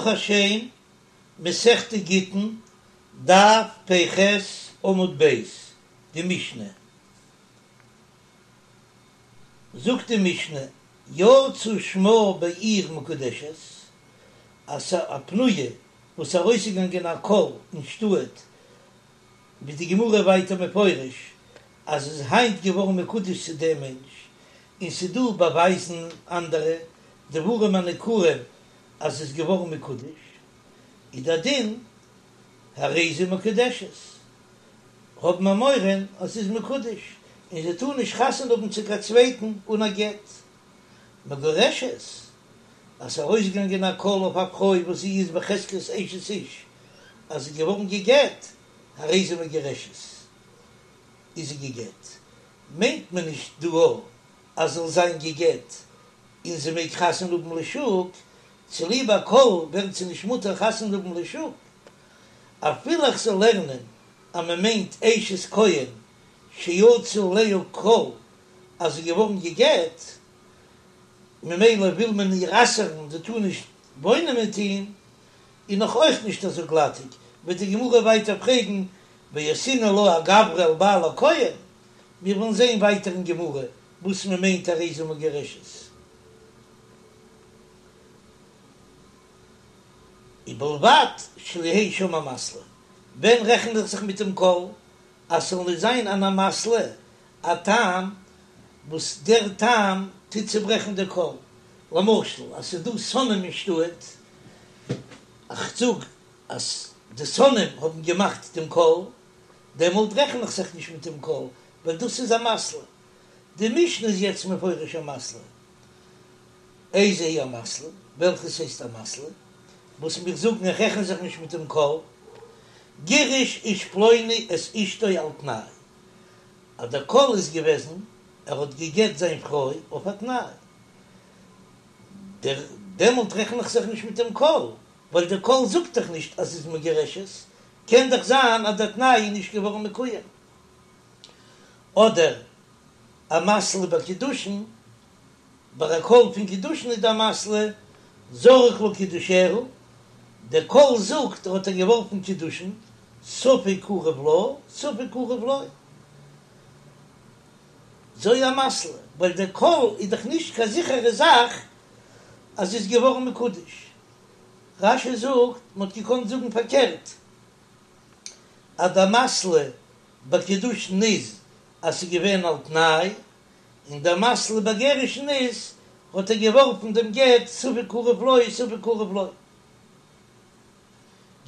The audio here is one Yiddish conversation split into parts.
ברוך השם, מסכת גיטין, דף פ"ח עמוד ב', די משנה. זאגט די משנה, יצא שמה בעיר מקודשת, אז א פנויה וואס איז ארויסגעגאנגען א קול אין שטאט, ווי די גמרא ווייטער מפרש אז איז היינט געווארן מקודש צו דעם מענטש, און ס'דא באווייזן אנדערע דברים הניכרים אז ס'איז געווארן מקודש, איז דער דין הרי זו מקודשת, האבן מיר מורא אז ס'איז מקודש, און זי טאר נישט חתונה האבן צו קיין צווייטן אן א גט. מגורשת, אז ס'איז ארויסגעגאנגען א קול אויף א פרוי וואס זי איז בחזקת אשת איש אז זי איז געווארן גע'גט, הרי זו מגורשת, איז זי גע'גט, מיינט מען נישט דא אז זאל זיין גע'גט און זי מעג חתונה האבן לשוק, צוליב א קול ווערט זי נישט מותר חתונה האבן לשוק, אפילו איך זאל לערנען אז מען מיינט אשת כהן שיצא עליה קול אז זי איז געווארן גע'גט, ממילא וויל מען איר אסר'ן זי טאר נישט וואוינען מיט אים, איז נאך אויך נישט אזוי גלאטיג, וועט די גמרא ווייטער פרעגן ואסרינן לה אגברא על בעלה כהן, מיר וועלן זען ווייטער אין גמרא וואס מען מיינט הרי זו מגורשת. ובלבד שלא יהא שם אמתלא, ווען רעכנט איך זיך מיט דעם קול אז ס'זאל נישט זיין אן אמתלא, א טעם וואס דער טעם טוט צוברעכן די קול, למשל אז ס'איז דא שונאים אין שטאט, איך זאג אז די שונאים האבן געמאכט דעם קול, דעמאלט רעכן איך זיך נישט מיט דעם קול, ווייל דאס איז אמתלא. די משנה איז יעצט מפרש אמתלא. איזו היא אמתלא, וועלכעס הייסט אמתלא, וואס מיר זאגן איך רעכן זיך נישט מיט דעם קול, גירש איש פלוני את אשתו על תנאי, אז דער קול איז געוועזן ער האט גע'גט זיין פרוי אויף א תנאי, דער דעמאלט רעכן איך זיך נישט מיט דעם קול, ווייל דער קול זאגט דאך נישט אז ס'איז מגורשת, קען דאך זיין אז דער תנאי איז נישט געווארן מקוים. אדער אמתלא בקידושין, ביי א קול פון קידושין איז די אמתלא זרק לה קידושיה, דער קול זאגט ער האט איר געווארפן קידושין, ספק קרוב לה ספק קרוב לו. זו אמתלא, ווייל דער קול איז דאך נישט קיין זיכערע זאך אז זי איז געווארן מקודש. רש"י זאגט, מען האט געקאנט זאגן פארקערט, אז די אמתלא בקידושין איז אז ס'איז געווען על תנאי, און די אמתלא בגירושין איז האט ער געווארפן דעם גט ספק קרוב לו ספק קרוב לו.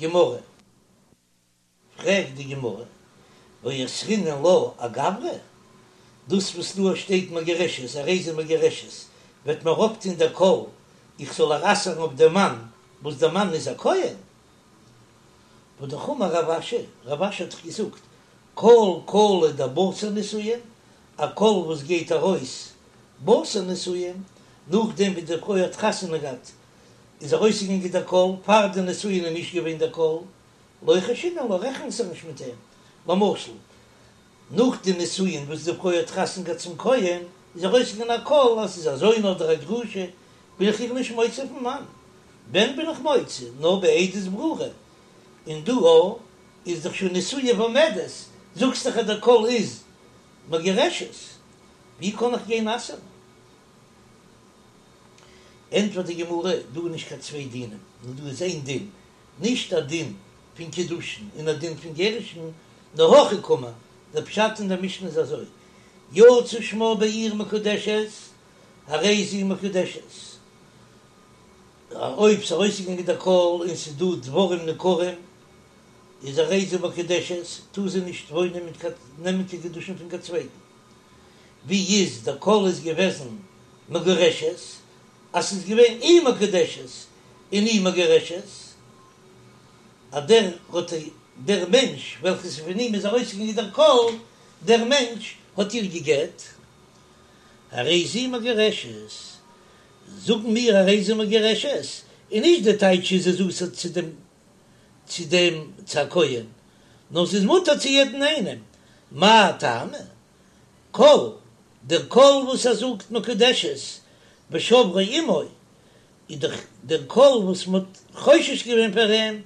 גמרא. פרעגט די גמרא, ואסרינן לה אגברא? דאס וואס דא שטייט מגורשת, הרי זו מגורשת, וועט מיר אויפטון דער קול איך זאל איר אסר'ן אויף דעם מאן וואס דער מאן איז א כהן? והאמר רב אשי, רב אשי האט דאך געזאגט, כל קלא דבתר נישואין, א קול וואס גייט ארויס בתר נישואין, נאכדעם ווי די פרוי האט חתונה געהאט איז ארויסגעגאנגען דער קול, פאר די נישואין איז נישט געווען דער קול, לא חיישינן לה, רעכנט זיך נישט מיט אים. למשל, נאך די נישואין וואס די פרוי האט חתונה געהאט צום כהן, איז ארויסגעגאנגען א קול אז ס'איז א זונה אדער א גרושה, בין איך איר נישט מוציא פון מאן. ווען בין איך מוציא? נאר בעדות ברורה. און דא איז דאך שוין נשואה ועומדת, זאגסט דאך אז דער קול איז מגורשת, ווי קען איך גיין אסר'ן? ענטפערט די גמרא, דא איז נישט קיין צוויי דינים, נאר דא איז איין דין, נישט א דין פון קידושין און א דין פון גירושין, נאר הכי קאמר, דער פשט אין דער משנה איז אזוי, יצא שמה בעיר מקודשת, הרי זו מקודשת, אויב ס'איז ארויסגעגאנגען דער קול און ס'איז דא דברים ניכרים, איז הרי זו מקודשת, טאר זי נישט וואוינען מיט קיין, נעמען קיין קידושין פון קיין צווייטן. ווי איז דער קול איז געוועזן מגורשת, אז ס'איז געווען אי מקודשת און אי מגורשת, אז דער האט דער מענטש וועלכעס פון אים איז ארויסגעגאנגען דער קול, דער מענטש האט איר גע'גט, הרי זו מגורשת, זאגן מיר הרי זו מגורשת, און נישט די טייטש איז זי אסור צו דעם צו דעם צו א כהן, נאר ס'איז מותר צו יעדן איינעם, מאי טעמא? קול, דער קול וואס ער זאגט מקודשת ושברו עמו. איז דאך דער קול וואס מען האט חושש געווען פאר אים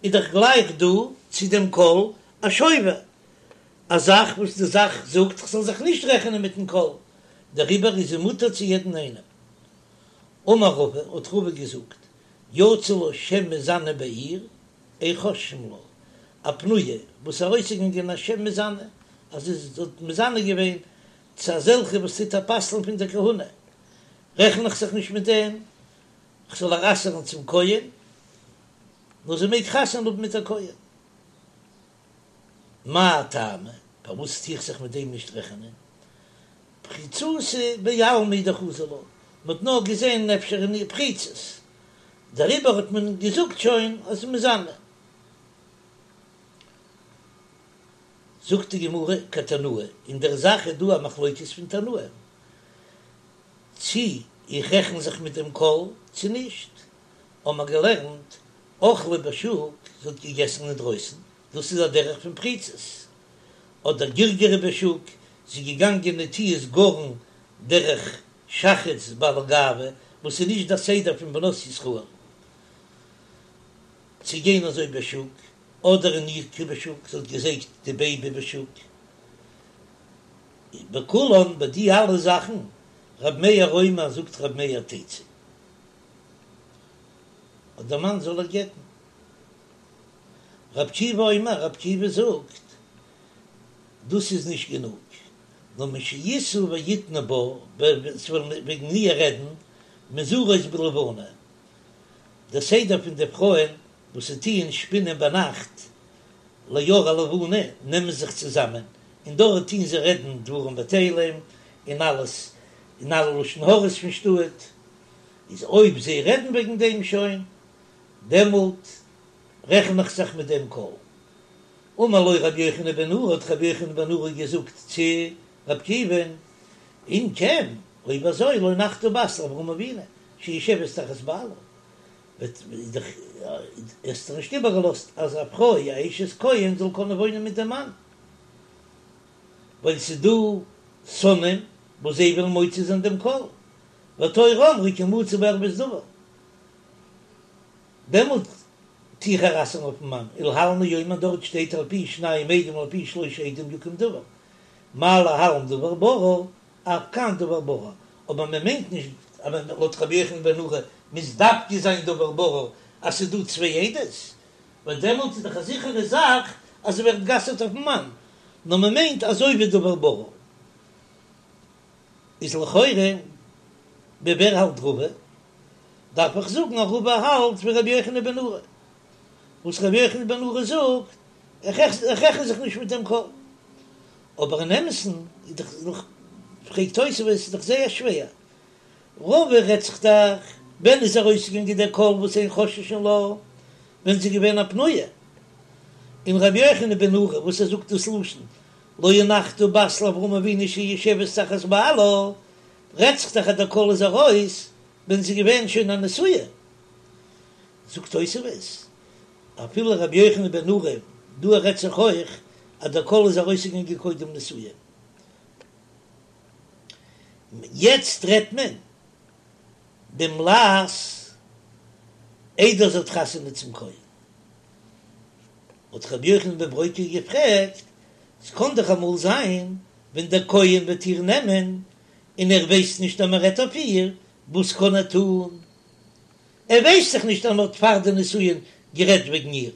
איז דאך גלייך דא צו דעם קול א שובר, א זאך וואס די זאך זאגט כ'זאל זיך נישט רעכענען מיטן קול, דעריבער איז זי מותר צו יעדן איינעם. אמר רבא, האט רבא געזאגט, יצא לה שם מזנה בעיר, אין חוששין לה, א פנויה וואס ארויסגעגאנגען א שם מזנה, אז זי האט מזנה געווען צו אזעלכע וואס טוט איר פסל'ן פון דער כהונה, רעכן איך זיך נישט מיט דעם, כ'זאל איר אסר'ן צום כהן, נאר זי מעג חתונה האבן מיט א כהן. מאי טעמא, פארוואס טו איך זיך מיט דעם נישט רעכענען? פריצותא בעלמא דחזו לה, מ'האט נאר געזען אפשר אין איר פריצות, דעריבער האט מען געזאגט שוין אז מזנה. זאגט די גמרא כתנאי, אין דער זאך איז דא א מחלוקת פון תנאים, צי איך רעכן זיך מיט דעם קול צי נישט, האבן מיר געלערנט אכלה בשוק, זי האט געגעסן אינדרויסן, דאס איז א דרך פון פריצות, אדער גרגרה בשוק, זי איז געגאנגען נטיעת גרן דרך שחץ בעלי גאווה, וואס איז נישט דער סדר פון בנות ישראל צו גיין אזוי בשוק, אדער הניקה בשוק, זי האט געזייגט די בעיבי בשוק, בכולן ביי די אלע זאכן, רב מאיר אומר זאגט רב מאיר תצא. אז דער מאן זאל איר גט'ן. רב עקיבא אומר, רב עקיבא זאגט, דאס איז נישט גענוג, נאר משישאו ויתנו בה, ס'וועלן וועגן איר רעדן, מזרות בלבנה, דער סדר פון די פרויען וואס זיי טוען שפינען ביינאכט לאור הלבנה, נעמען זיך צוזאמען, און דארט טוען זיי רעדן דברים בטלים, און אלעס, און אלע לשון הרע'ס פון שטאט, איז אויב זיי רעדן וועגן דעם שוין, דעמאלט רעכן איך זיך מיט דעם קול. אמר לו רבי יוחנן בן נורי, האט רבי יוחנן בן נורי געזאגט צו רבי עקיבא'ן, אם כן, אויב אזוי, לא הנחת בת לאברהם אבינו, שיושבת תחת בעלה, וועט דאך האסט דאך נישט איבערגעלאזט אז א פרוי א אשת כהן זאל קענען וואוינען מיט דעם מאן, ווייל ס'איז דא שונאים וואס זיי ווילן מוציא זיין דעם קול, והתורה אמרה כי מצא בה ערות דבר, דעמאלט טו איך איר אסר'ן אויפן מאן, ולהלן הוא אומר דארט שטייט על פי שניים עדים על פי שלושה עדים יקום דבר, מה להלן דבר ברור, אף כאן דבר ברור, אבער מען מיינט נישט אז לויט רבי יוחנן בן נורי מוז דווקא זיין דבר ברור אז ס'איז דא צוויי עדות, ווייל דעמאלט איז דאך א זיכערע זאך אז זי ווערט גע'אסר'ט אויפן מאן, נאר מען מיינט אזוי ווי דבר ברור. איז לכאורה ווי ווער האלט רבא? דארף איך זאגן אז רבא האלט ווי רבי יוחנן בן נורי, וואס רבי יוחנן בן נורי זאגט, איך רעכן זיך נישט מיט דעם קול. אבער אין אמת'ן איז דאך, פרעגט תוספות, איז דאך זייער שווער, רבא רעדט זיך דאך ווען איז ארויסגעגאנגען דער קול וואס אין חוששין לה, ווען זי איז געווען א פנויה, און רבי יוחנן בן נורי וואס ער זאגט דאס לשון לא הנחת בת לאברהם אבינו שיושבת תחת בעלה, רעדט זיך דאך אז דער קול איז ארויס ווען זי איז געווען שוין א נשואה. זאגט תוספות, אפילו רבי יוחנן בן נורי, דא רעדט זיך אויך אז דער קול איז ארויסגעגאנגען קודם נישואין. יעצט רעדט מען דעם לעז איידער זי האט חתונה צום כהן. האט רבי יוחנן בן ברוקה געפרעגט, ס'קען דאך אמאל זיין ווען דער כהן וועט איר נעמען און ער ווייסט נישט אז מען רעדט אויף איר, וואס קען ער טון? ער ווייסט דאך נישט אז מען האט פאר די נישואין גערעדט וועגן איר.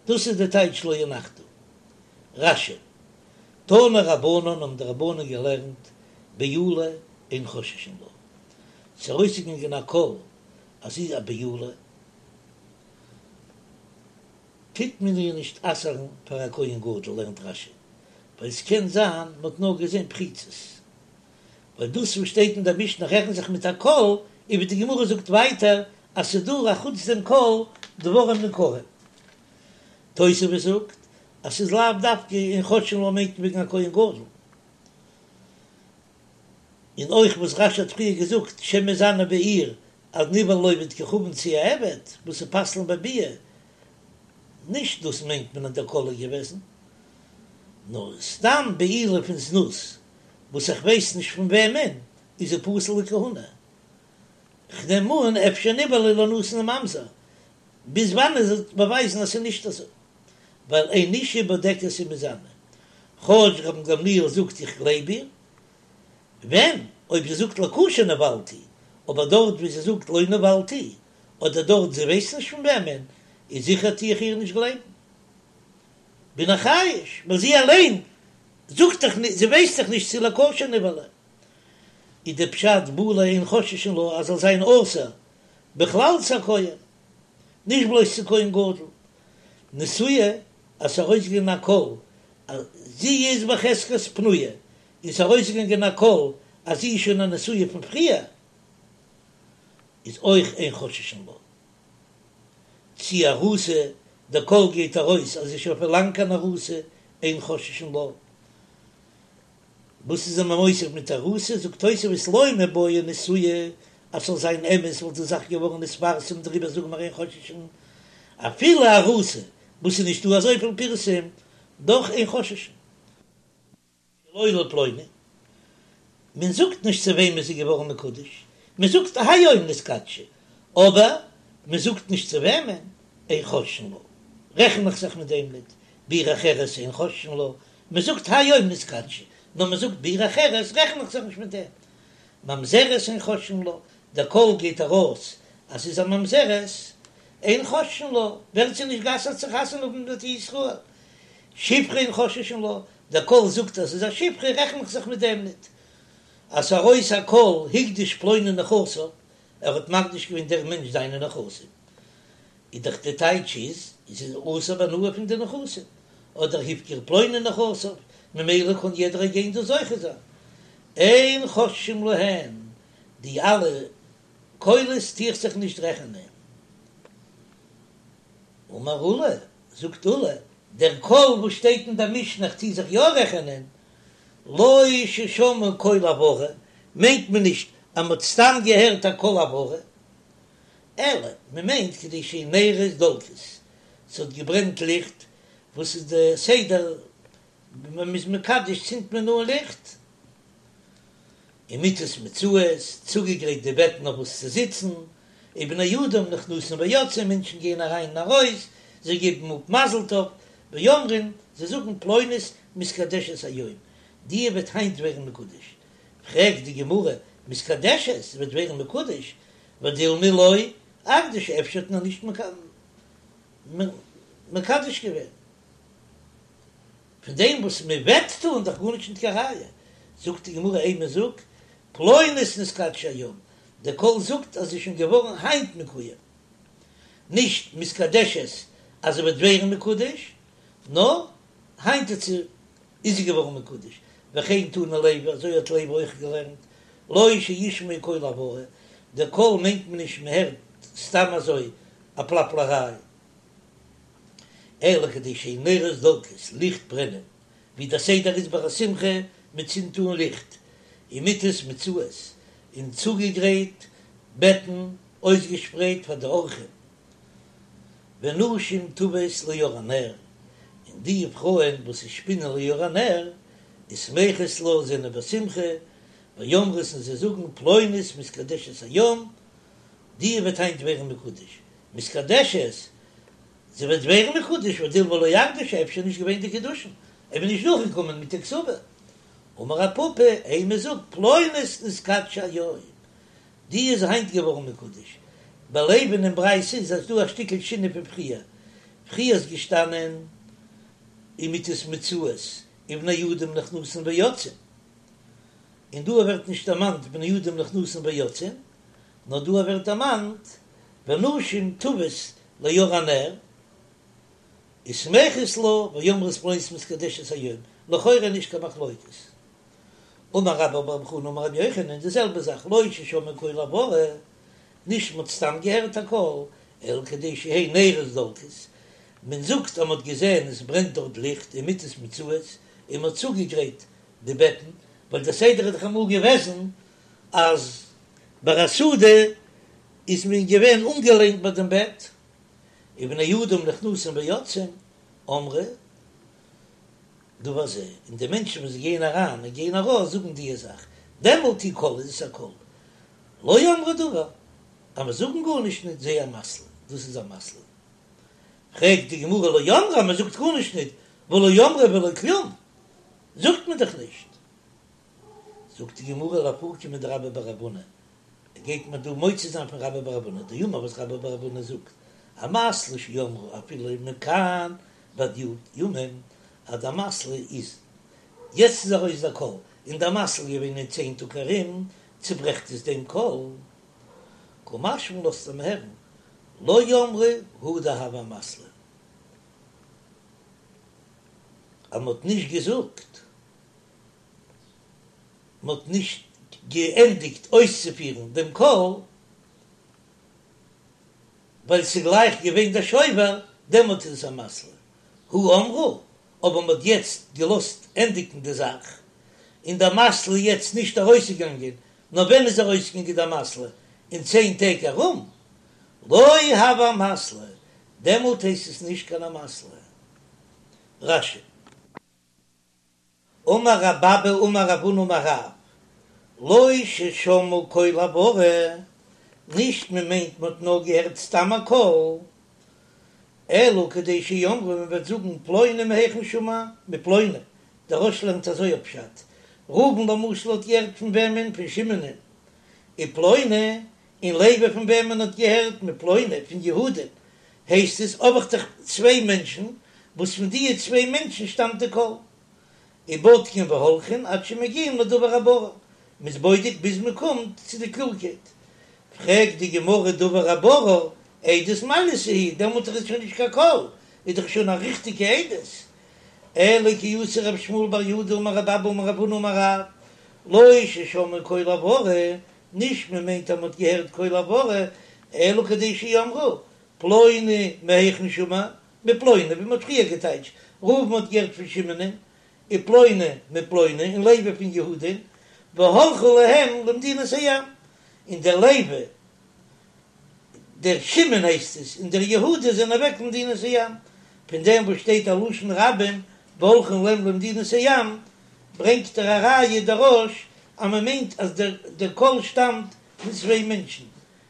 דאס איז די טייטש לא הנחת. רש"י, תנו רבנן האבן די רבנן געלערנט בעולה אין חוששין לה. ס'איז ארויסגעגאנגען א קול אז זי איז א בעולה, טוט מען איר נישט אסר'ן פאר א כהן גדול, לערנט רש"י, ווייל ס'קען זיין מ'האט נאר געזען פריצות. ווייל דאס וואס שטייט אין דער משנה רעכנט זיך מיט א קול, און ווי די גמרא זאגט ווייטער אז ס'איז דא אחוץ דעם קול דברים ניכרים. תוספות זאגט אז ס'איז לאו דווקא אין חוששין לה מיינט וועגן א כהן גדול. און אויך וואס רש"י האט פריער געזאגט שם מזנה בעיר אז נבעלה לעובד כוכבים צו א עבד וואס איז פסל'ן בביאה, נישט דאס מיינט מען אז דער קול איז געוועזן, נאר סתם בעילה פון זנות וואס איך ווייס נישט פון וועמען, איז זי פסול לכהונה. כ'נעם אן אפשר נבעלה לנתין וממזר, ביז וואנען זי וועט באווייזן אז ס'איז נישט אזוי, ווייל אין אשה בודקת ומזנה, כאטש רבן גמליאל זאגט איך גלייב איר, ווען אויב זי זאגט לכשר נבעלתי, אבער דארט ווי זי זאגט לא נבעלתי, אדער דארט זי ווייסט נישט פון וועמען, איז זיכער טו איך איר נישט גלייבן. בין איך חייש, ווייל זי אליין זאגט דאך נישט, זי ווייסט דאך נישט צו לכשר נבעלה. איז די פשט בעולה אין חוששין לה אז זאל זיין אסור בכלל צו א כהן, נישט בלויז צו כהן גדול. נשואה, אז ס'איז ארויסגעגאנגען א קול אז זי איז בחזקת פנויה, און ס'איז ארויסגעגאנגען א קול אז זי איז שוין א נשואה פון פריער, איז אויך אין חוששין לה. צי ארוסה, דער קול גייט ארויס אז זי איז שוין פון לאנג אן ארוסה, אין חוששין לה. וואס איז מען מוסיף מיט ארוסה? זאגט תוספות לא מיבעיא נשואה, אז ס'זאל זיין אמת וואלט די זאך געווארן נתפרסם דעריבער זאגן מיר אין חוששין אפילו ארוסה וואס איז נישטא אזויפיל פירסום דאך אין חוששין. שלא לפלוני, מען זאגט נישט צו וועמען זי איז געווארן מקודש, מען זאגט היום נתקדשה, אבער מען זאגט נישט צו וועמען, אין חוששין לה, רעכן איך זיך מיט דעם ניט, בעיר אחרת אין חוששין לה, מען זאגט היום נתקדשה, נאר מען זאגט בעיר אחרת רעכן איך זיך נישט מיט דעם. ממזרת אין חוששין לה, דער קול גייט ארויס אז ס'איז א ממזרת, אין חוששין לה, ווערט זי נישט גע'אסר'ט צו חתונה האבן מיט ישראל. שפחה אין חוששין לה, דער קול זאגט אז ס'איז א שפחה רעכן איך זיך מיט דעם ניט. אז ס'ארויס א קול הקדיש פלוני נכסיו, ער האט מקדיש געווען דער מענטש זיינע נכסים, איז דאך די טייטש איז זי איז אסור בהנאה פון די נכסים, אדער הפקיר פלוני נכסיו, ממילא קען יעדער גיין דא זוכה זיין. אין חוששים להן, די אלע קולות טו איך זיך נישט רעכענען. אמר עולא, זאגט עולא, דער קול וואס שטייט אין דער משנה איך טו זיך יא רעכענען, לא ששמעו קול הברה, מיינט מען נישט אז מען האט סתם געהערט א קול הברה, אלא מען מיינט כדי שיהו נרות דולקות, ס'האט געברענט ליכט, וואס איז די סדר ווען מ'איז מקדש צינדט מען אן ליכט, ומטות מוצעות, צוגעגרייט די בעטן אויף וואס צו זיצן, ובני אדם נכנסים ויוצאים, מענטשן גייען אריין און ארויס, זיי געבן אפ מזל טוב, ואומרים, זיי זאגן פלונית מתקדשת היום, די וועט היינט ווערן מקודש, פרעגט די גמרא, מתקדשת וועט ווערן מקודש, ודילמא לא אקדשה, אפשר האט מען נישט מקדש געווען. פון דעם וואס מען וועט טון דאך גארנישט ניט קיין ראיה, זאגט די גמרא אימא זאג פלונית נתקדשה היום, דער קול זאגט אז זי איז שוין געווארן היינט מקוים, נישט מתקדשת אז זי וועט ווערן מקודש, נאר היינט איז זי איז זי געווארן מקודש, וכן תנא לוי, אזוי האט לוי אויך געלערנט, לא שישמעו קול הברה, דער קול מיינט מען נישט מען הערט סתם אזוי א פלאפלעריי, אלא כדי שיהו נרות דולקות, ליכט ברענען, ווי דער סדר איז ביי א שמחה, מען צינדט אן ליכט, ומטות מוצעות, און צוגעגרייט בעטן אויסגעשפרייט פאר די אורחים, ונשים טוות לאור הנר, און די פרויען וואס שפינען לאור הנר, ושמחות לה, זענען בשמחה, ואומרות און זיי זאגן פלונית מתקדשת היום, די וועט היינט ווערן מקודש, מתקדשת, זי וועט ווערן מקודש, ודילמא לא אקדשה, אפשר נישט געווען די קידושין, אויב נישט דורכגעקומען מיט די כתובה. אמר רב פפא, אימא זאג פלונית נתקדשה היום, די איז היינט געווארן מקודש. ביי לוי'ן אין ברייתא איז אז דא א שטיקל שינוי פון פריער, פריער איז געשטאנען ומטות מוצעות ובני אדם נכנסין ויוצאין, און דא ווערט נישט דערמאנט בני אדם נכנסין ויוצאין, נאר דא ווערט דערמאנט ונשים טוות לאור הנר ושמחות לה ואומרות פלונית מתקדשת היום, לכאורה נישט קיין מחלוקת. אמר רבה בר בר חנה אמר רבי יוחנן די זעלבע זאך לא ששמעו קול הברה, נישט מ'האט סתם געהערט א קול, אלא כדי שיהא נרות דולקות, מען זאגט אז מ'האט געזען עס ברענט דארט ליכט ומטות מוצעות און מ'האט צוגעגרייט די בעטן, ווייל דער סדר איז דאך אמאל געוועזן אז ביי א סעודה איז מען געווען אנגעלענט ביי דעם בעט, ובני אדם נכנסים ויוצאים, אמרו דבר זה, און די מענטשן וואס גייען אריין און גייען ארויס זאגן די זאך, דעמאלט הוא קול איז עס א קול, לא אמרו דבר, אז מיר זאגן גארנישט ניט זה אמתלא, דאס איז אמתלא. פרעגט די גמרא לא אמרו אז מען זאגט גארנישט ניט, והא לא אמרו ולא כלום, זאגט מען דאך נישט. זאגט די גמרא לאפוקי מדרבה בר רב הונא, ער גייט מיר דא מוציא זיין פון רבה בר רב הונא, דאמר וואס רבה בר רב הונא זאגט, אמתלא שאמרו אפילו מכאן ועד י' ימים, אז די אמתלא איז יעצט איז ארויס דער קול, און די אמתלא איז געווען אין צען טאג ארום, צוברעכט עס דעם קול. קא משמע לן לאזט ער מיר הערן, לא אמרו הא דהוה אמתלא, אז מען האט נישט געזאגט, מען האט נישט געענדיגט אויסצופירן דעם קול, ווייל ס'איז גלייך געווען דער שובר, דעמאלט איז עס אמתלא. הא אמרו, אבער מען האט יעצט געלאזט ענדיגן די זאך, און די אמתלא איז יעצט נישט ארויסגעגאנגען, נאר ווען איז ארויסגעגאנגען די אמתלא? אין צען טעג ארום, לא הוה אמתלא, דעמאלט הייסט עס נישט קיין אמתלא. רש"י. אמר רב אבא אמר רב הונא אמר רב, לא ששמעו קול הברה, נישט מען מיינט מען האט נאר געהערט סתם א קול, אלא כדי שיאמרו מען וועט זאגן פלוני מהיכן שמע, מפלוני, דער רא"ש לערנט אזוי א פשט, ראובן למשל האט געהערט פון וועמען? פון שמעונ'ען, ופלוני, און לוי פון וועמען האט געהערט? מפלוני, פון יהודה'ן, הייסט עס האב איך דאך צוויי מענטשן וואס פון דיע צוויי מענטשן שטאמט די קול. ובודקין והולכין עד שמגיעים לדבר הברור, מ'איז בודק ביז מ'קומט צו די קלארקייט. פרעגט די גמרא דבר הברור, עדות מעלייתא היא, דעמאלט איז עס שוין נישט קיין קול, איז דאך שוין א ריכטיגע עדות. אלא כי אתא רב שמואל בר יהודה אמר רב אבא אמר רב הונא אמר רב, לא ששמעו קול הברה, נישט מ'מיינט אז מ'האט געהערט קול הברה, אלא כדי שיאמרו, פלוני מהיכן שמע, מפלוני, ווי מ'האט פריער געטייטשט, ראובן האט געהערט פון שמעונ'ען, ופלוני מפלוני, און לוי פון יהודה'ן, והלכו להם למדינת הים, און דער לוי, דער שמעון הייסט עס, און דער יהודה זענען אוועק למדינת הים. פון דעם וואס שטייט א לשון רבים והלכו להם למדינת הים, ברענגט ער א ראיה דער רא"ש אז מ'מיינט אז דער קול שטאמט פון צוויי מענטשן,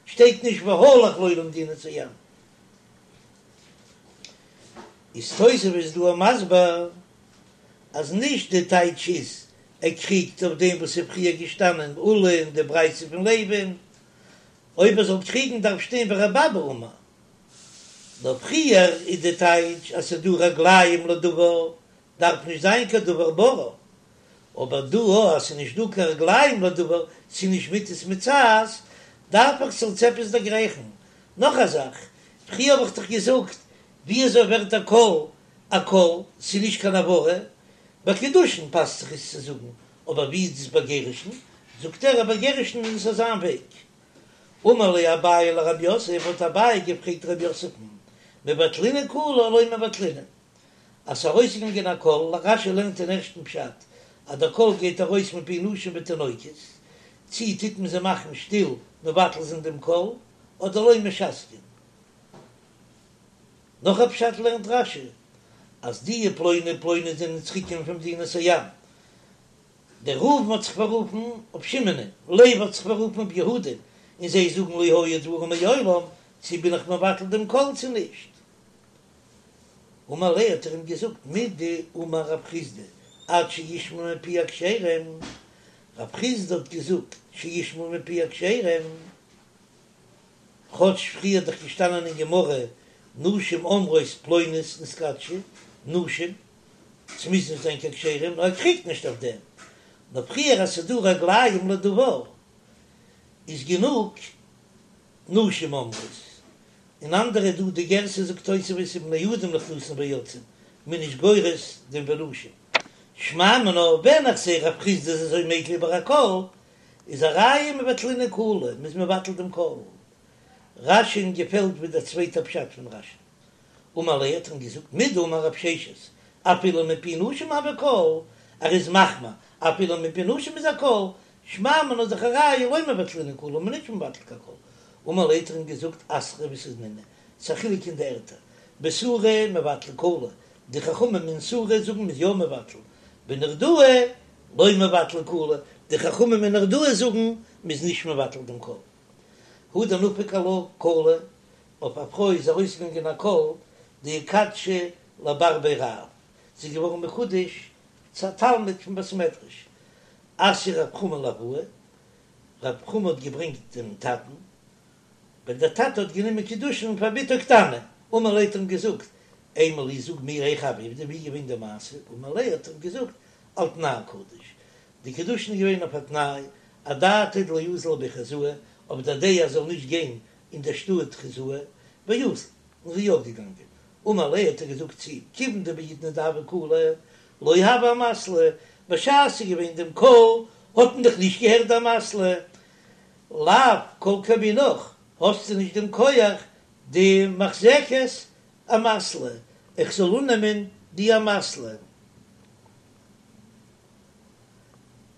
שטייט נישט והלך לו למדינת הים. איז תוספות דא מסביר אז נישט די טייטש איז ער קריגט אויף דעם וואס איז פריער געשטאנען עולא און די ברייתא פון לוי'ן, אויב ער זאל קריגן דארף שטיין ורבי אבא אמר, נאר פריער איז די טייטש אז ס'איז דא רגליים לדבר דארף נישט זיין קיין דבר ברור, אבער דא אז ס'איז נישט דא קיין רגליים לדבר, ס'איז נישט מטות מצאת, דארף איך ס'זאל צו עפעס דערגרייכן. נאך א זאך, פריער האב איך דאך געזאגט, ווי אזוי ווערט א קול א קול, ס'איז נישט קיין הברה, ביי קידושין פאסט זיך עס צו זאגן, אבער ווי איז דאס ביי גירושין? זאגט ער אז ביי גירושין איז עס אזא וועג. אמר ליה אביי לרב יוסף, האט אביי געפרעגט רב יוסף'ן, מבטלינן קלא או לא מבטלינן? אז ס'איז ארויסגעגאנגען א קול, רש"י לערנט אין ערשטן פשט אז דער קול גייט ארויס מפי נשים ותינוקות, צי טוט מען זיי מאכן שטיל מבטל זיין דעם קול, אדער לא משתקין. נאך א פשט לערנט רש"י אז די פלוני ופלוני זענען צוריקגעקומען פון מדינת הים, דער ראובן האט זיך פאררופן אויף שמעונ'ען, לוי האט זיך פאררופן אויף יהודה'ן, און זיי זאגן לא היו דברים מעולם, צי בין איך מבטל דעם קול צי נישט. אמר ליה האט ער אים געזאגט מדאמר רב חסדא עד שישמעו מפי הכשרים, רב חסדא האט געזאגט שישמעו מפי הכשרים, כאטש פריער איז דאך געשטאנען אין גמרא נשים אומרות פלונית נתקדשה, נשים, ס'מוז נישט זיין קיין כשרים, נאר ער קריגט נישט אויף דעם, נאר פריער אז ס'איז דא רגליים לדבר איז גענוג נשים אומרות, און אנדערע דא די גירסא זאגט תוספות ובני אדם נכנסין ויוצאין, מ'איז נישט גורס דעם ונשים. שמע מינה, ווען איך זעה רב חסדא איז אזוי מיקל איבער א קול, איז א ראיה מבטלינן קלא, מ'איז מבטל דעם קול. רש"י'ן געפעלט ווי דער צווייטער פשט פון רש"י. אמר ליה האט ער אים געזאגט מדאמר רב ששת אפילו מפי נשים הוי קול, ער איז מחמיר אפילו מפי נשים איז א קול, שמע מינה איז דאך א ראיה לא מבטלינן קלא, מ'איז נישט מבטל קיין קול. אמר ליה האט ער אים געזאגט אתרא ותנינא, ס'איז א חילוק אין די ערטער, בסורא מבטלי קלא, די חכמים אין סורא זאגן מ'איז יא מבטל, בנהרדעא לא מבטלי קלא, די חכמים אין נהרדעא זאגן מ'איז נישט מבטל דעם קול. הא דנפק עלה קלא, אויף א פרוי איז ארויסגעגאנגען א קול דאיקדשה לבר בי רב, זי איז געווארן מקודש צו א תלמיד פון בית מדרש, אתייה רב חמא לאבוה, רב חמא האט געברענגט דעם טאטן, ווען דער טאטע האט גענומען קידושין פאר בתו קטנה, אמר ליה האט ער אים געזאגט, אימא לי זאג מיר היכי הוה עובדא ווי איז געווען די מעשה, אמר ליה האט ער אים געזאגט על תנאי קדיש, די קידושין איז געווען אויף א תנאי, אדעתא דלא אזיל לבי חוזאי, אויף דער דעה אז זאל נישט גיין אין דער שטאט חוזאי, ואזיל, און זי איז יא געגאנגען, אמר ליה האט ער געזאגט צו אים, כיוון דבעידנא דהוה קלא, לא הוה אמתלא, בשעת ס'איז געווען דעם קול האט מען דאך נישט געהערט די אמתלא, לאו כל כמינך, האסטו נישט דעם כח דמחזקת אמתלא, איך זאל אננעמען די אמתלא.